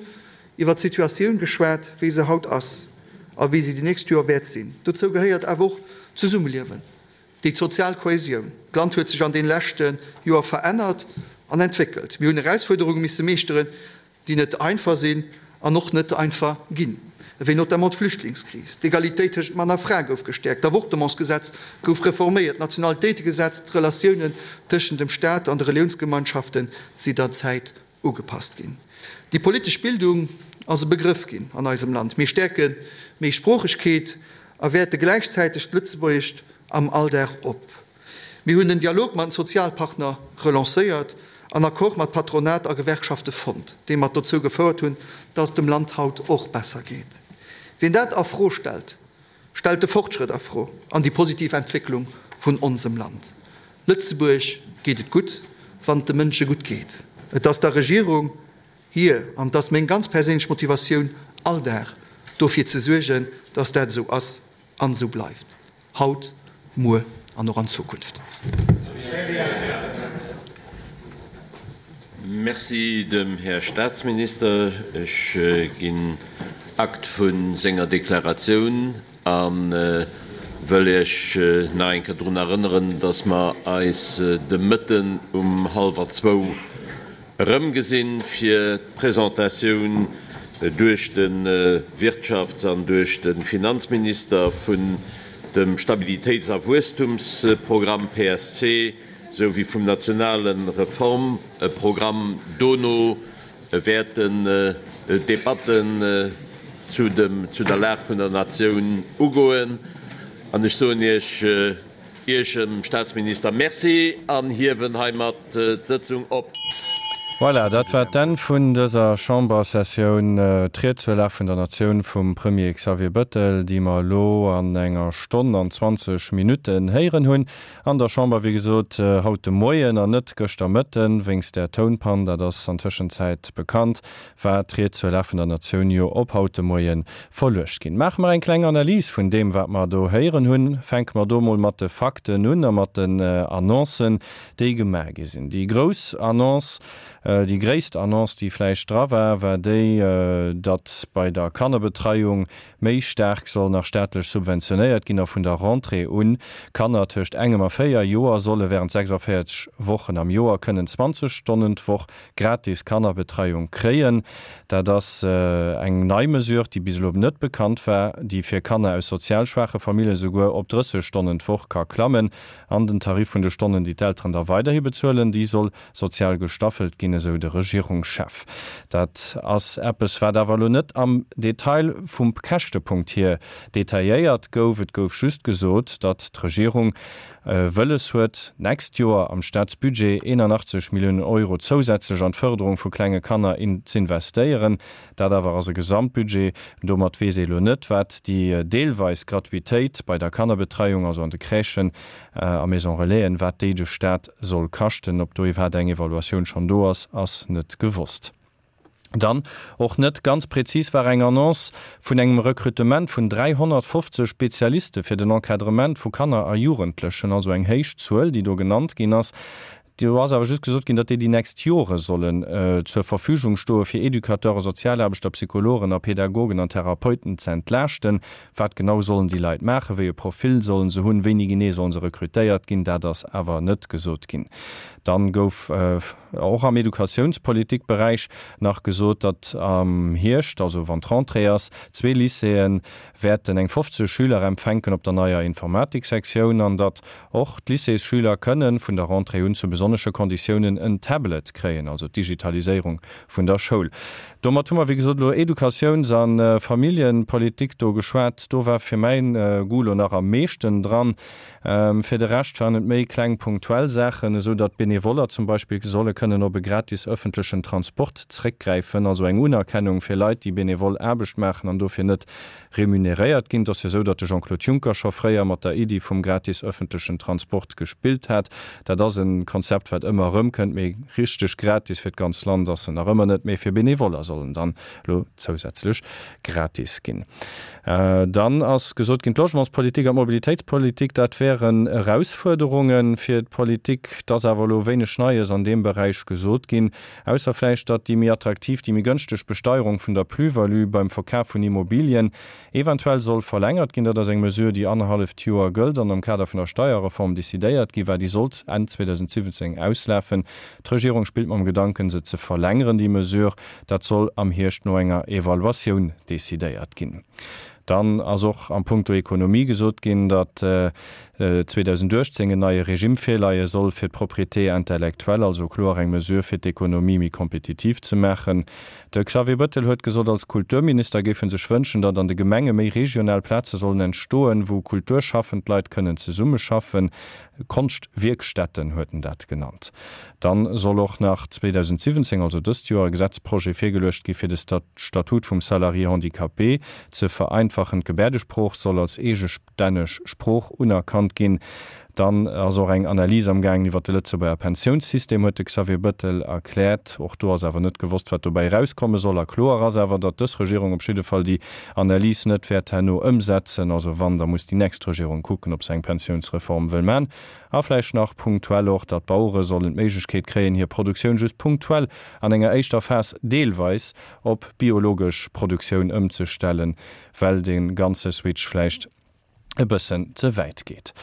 iwwert d'Situatioun geschwat, wéi se haut ass a wéi se déi nächst Joer wäert sinn. Dozou gehéiert awer och d'Zesummeliewen, déi sozial Kohäsioun. D'Land huet sech an deene leschte Joer verännert an entwéckelt. Mir hunn Erausfuerderunge misse meeschteren, déi net einfach sinn an och net einfach ginn, ewéi notamment d'Flüchtlingskris. D'Egalitéit tëschent Mann a Fra gouf gestäerkt, d'Avortementsgesetz gouf reforméiert, d'Nationalitéitegesetz, d'Relatiounen tëschent dem Staat an de Reliounsgemeinschafte si der Zäit ugepasst ginn. Déi politesch Bildung ass e Begrëff ginn an eisem Land. Mir stäerke d'Méisproochegkeet a wäerte gläichzäiteg d'Lëtzebuergescht am Alldag op. Mir hunn den Dialog mat den Sozialpartner relancéiert an Accord mat Patronat a Gewerkschafte fonnt, déi mat dozou gefouert hunn, dass et dem Land haut och besser geet. Wien dat a Fro stellt, stellt de Fortschrëtt a Fro an déi positiv Entwécklung vun onsem Land. Lëtzebuerg geet et gutt, wann et de Mënsche gutt geet. Et ass der Regierung hir, an et ass meng ganz perséinlech Motivatioun all Dag, dofir ze suergen, dass dat esou ass an esou bleift. Haut, muer an och an Zukunft. Merci dem Här Statsminister. Ech ginn Akt vu senger Deklaratioun a wëll Iech nach eng Kéier drun erënneren, dass mer eis de Mëtten um hallwer zwou Erëmgesinn fir d'Presentatioun duerch de Wirtschafts an duerch de Finanzminister vun dem Stabilitéits a Wuesstumsprogramm, PSC, sou wéi vum nationale Reformprogramm. Dono wäerten d'Debatten zu der Lag vun der Natioun ugoen. An ech soen Iech, Iech, dem Staatsminister, Merci an hiewen heimat d'Sëtzung op. Voilà, dat war d'Enn vun dëser Chambersessioun. D'Ried zur Lag vun der Natioun vum Premier Xavier Bëttel, déi mer elo an enger Stonn an 20 Minutten héieren hunn an der Chamber, wéi gesot haut de Moien an net gëschter Mëtten, wéinst där Tounpann, dat ass an Tëschenzäit bekannt, war d'Ried zur Lag vun der Natioun jo op haut de Moie verluecht ginn. Maache mer eng kleng Analys vun deem, wat mer do héieren hunn. Fänke mer do mol mat de Fakten un a mat den Annoncen, déi gemaach gi sinn. Déi grouss Annonce, déi gréisst Annonce, déi vläicht dra war, war déi, datt bei der Kannerbetreiung méi staark soll nach staatlech subventionéiert ginn a vun der Rentrée un Kanner tëscht engem a 4 Joer solle wärend 46 Wochen am Joer kënnen 20 Stonnen d'Woch gratis Kannerbetreiung kréien. Dat ass eng nei Mesure, déi bis elo net bekannt war, déi fir Kanner aus sozial schwaache Famillje souguer op 30 Stonnen d'Woch ka klammen. An den Tarif vun de Stonnen, déi d'Elteren da weiderhi bezuelen, déi soll sozial gestaffelt ginn, esou de Regierungschef. Dat ass eppes, wat awer elo net am Detail vum Käschtepunkt hier detailléiert gouf. Et gouf just gesot, datt d'Regierung wëlles huet, d'nächst Joer am Staatsbudget 81 Milliounen Euro zousätzlech an d'Fërderung vu klenge Kanner z'investéieren. Dat awer ass e Gesamtbudget. Domat weess ee elo net, wat déi deelweis Gratuitéit bei der Kannerbetreiung, also an de Crèchen a Maison Relaisen, wat déi de Staat soll kaschten. Ob do iwwerhaapt eng Evaluatioun schonn do ass, ass net gewosst. Dann, och net ganz prezis, war eng Annonce vun engem Recrutement vun 350 Spezialiste fir den Encadrement vu Kanner a Jugendlechen, also eng héich Zuel, déi do genannt ginn ass. Do ass awer just gesot ginn, datt déi déi nächst Jore sollen zur Verfügung stoe fir Educateuren, Sozialaarbechter, Psychologen a Pädagogen an Therapeuten ze entlaaschten. Wat genau sollen déi Leit maachen, wéi e Profil sollen se hunn, wéini genee sollen se rekrutéiert ginn, dat ass awer net gesot ginn. Dann gouf och am Educatiounspolitikberäich nach gesot, datt am Hierscht, also wann d'Rentrée ass, zwee Lycéeë wäerten eng 50 Schüler empfänken op der neier Informatiksektioun an datt och d'Lycéesschüler kënne vun der Rentrée un zu besonnesche Konditiounen en Tablet kréien, also d'Digitaliséierung vun der Schoul. Domat hu mer, wéi gesot, elo Educatiouns a Familljepolitik do geschwat. Do war fir mäin Goût elo nach am meeschten dran. Fir de Rescht waren et méi kleng punktuell Saachen, esou datt Benevoller zum Beispill solle kënnen op e gratis ëffentlechen Transport zréckgräifen, also eng Unerkennung fir Leit, déi benevol Aarbecht maachen an dofir net remuneréiert ginn. Et ass jo esou, datt de Jean-Claude Juncker scho fréier mat der Iddi vum gratis ëffentlechen Transport gespillt hat. Dat ass e Konzept, wat ëmmer erëmkënnt, mee richteg gratis fir d'ganz Land ass en nach ëmmer net. Mee fir Benevoller soll en dann elo zousätzlech gratis ginn. Dann ass gesot ginn, d'Logementspolitik an d'Mobilitéitspolitik, dat wären Erausfuerderunge fir d'Politik. Et ass awer elo wéineg Neies an deem Beräich gesot ginn, ausser vläicht, datt déi méi attraktiv, déi méi gënschteg Besteierung vun der Plus-value beim Verkaf vun Immobilien eventuell soll verlängert ginn. Dat ass eng Mesure, déi annerhalleft Joer gëllt an am Kader vun der Steierreform decidéiert gi war. Déi sollt Enn 2017 auslafen. D'Regierung spillt mam Gedanken, se ze verlängeren, déi Mesure. Dat soll am Hierscht no enger Evaluatioun decidéiert ginn. Dann ass och am Punkto Ekonomie gesot ginn, datt 2018 en neie Regime virleie soll fir d'Propriété intellectuelle, also kloer eng Mesure fir d'Ekonomie méi kompetitiv ze maachen. De Xavier Bettel huet gesot, als Kulturminister géif en sech wënschen, datt an de Gemenge méi regional Plaze sollen entstoen, wou kulturschaffend Leit kënnen zesummeschaffen. Konschtwierkstätten huet en dat genannt. Dann soll och nach 2017, also dëst Joer, e Gesetzprojet virgeluecht gi fir de Statut vum Salarié handicapé ze vereinfachen. D'Gebäerdesprooch soll als eegestänneg Sprooch unerkannt ginn. Dann ass och eng Analys amgaangen iwwert de Lëtzebuerger Pensiounssystem, huet de Xavier Bettel erkläert. Och do ass awer net gewosst, wat dobäi erauskomme soll. A kloer ass awer, datt dës Regierung op jidde Fall déi Analys net wäert herno ëmsetzen. Also wann, da muss déi nächst Regierung kucken, ob se eng Pensiounsreform wëll man. A vläicht nach punktuell och, datt d'Bauere sollen d'Méiglechkeet kréien, hir Produktioun just punktuell an enger éischter Phas deelweis op biologesch Produktioun ëmzestellen, well de ganze Switch vläicht e bëssen ze wäit geet.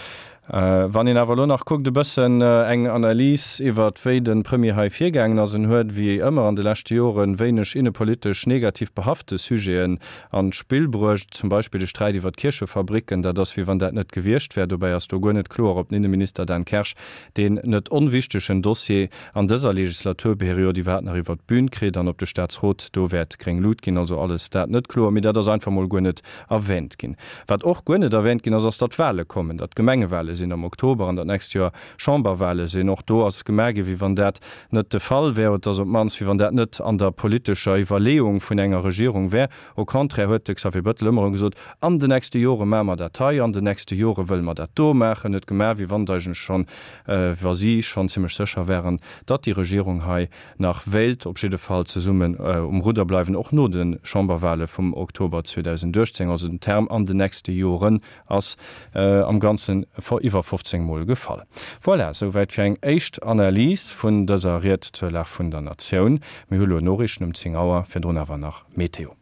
Wann een awer elo nach kuckt, e bëssen eng Analys iwwert wéi de Premier hei virgaangen ass, en huet wéi ëmmer an de leschte Joren wéineg innepolitesch negativ behafte Sujeten an d'Spill bruecht, zum Beispill de Sträit iwwer d'Kierchefabricken, dat ass wéi wann dat net gewiescht wär. Dobäi ass do guer net kloer, ob den Inneminister Dan Kersch deen net onwichtegen Dossier an dëser Legislaturperiod iwwerhaapt nach iwwer d'Bün kritt an ob de Staatsrot do wäert gréng Lut ginn. Also alles dat net kloer, mee dat ass einfach mol guer net erwähnt ginn. Wat och guer net erwähnt ginn ass, ass datt Wahle kommen, datt Gemengewale sinn. sinn am Oktober an datt d'nächst Joer Chamberwale sinn. Och do ass gemaach ginn, wéi wann dat net de Fall wär, oder op d'mannst wéi wann dat net an der politescher Iwwerleeung vun enger Regierung wär. Au contraire huet de Xavier Bettel ëmmer erëm gesot, An den nächste Jore maache mer dat hei, an den nächste Jore wëlle mer dat do maachen. Huet gemaach, wéi wann et eigentlech schonn, wa si schonn zimlech sécher wären, datt déi Regierung hei nach wéilt op jidde Fall zesummen um Rudder bleiwen, och no de Chamberwale vum Oktober 2018. Also den Term an den nächste Joren ass am Ganzen iwwer 15 Mol gefall. Voilà, souwäit fir eng éischt Analys vun dëser Ried zur Lag vun der Natioun. Mir hu lo Noriichten um 10 Auer, virdrun awer nach Meteo.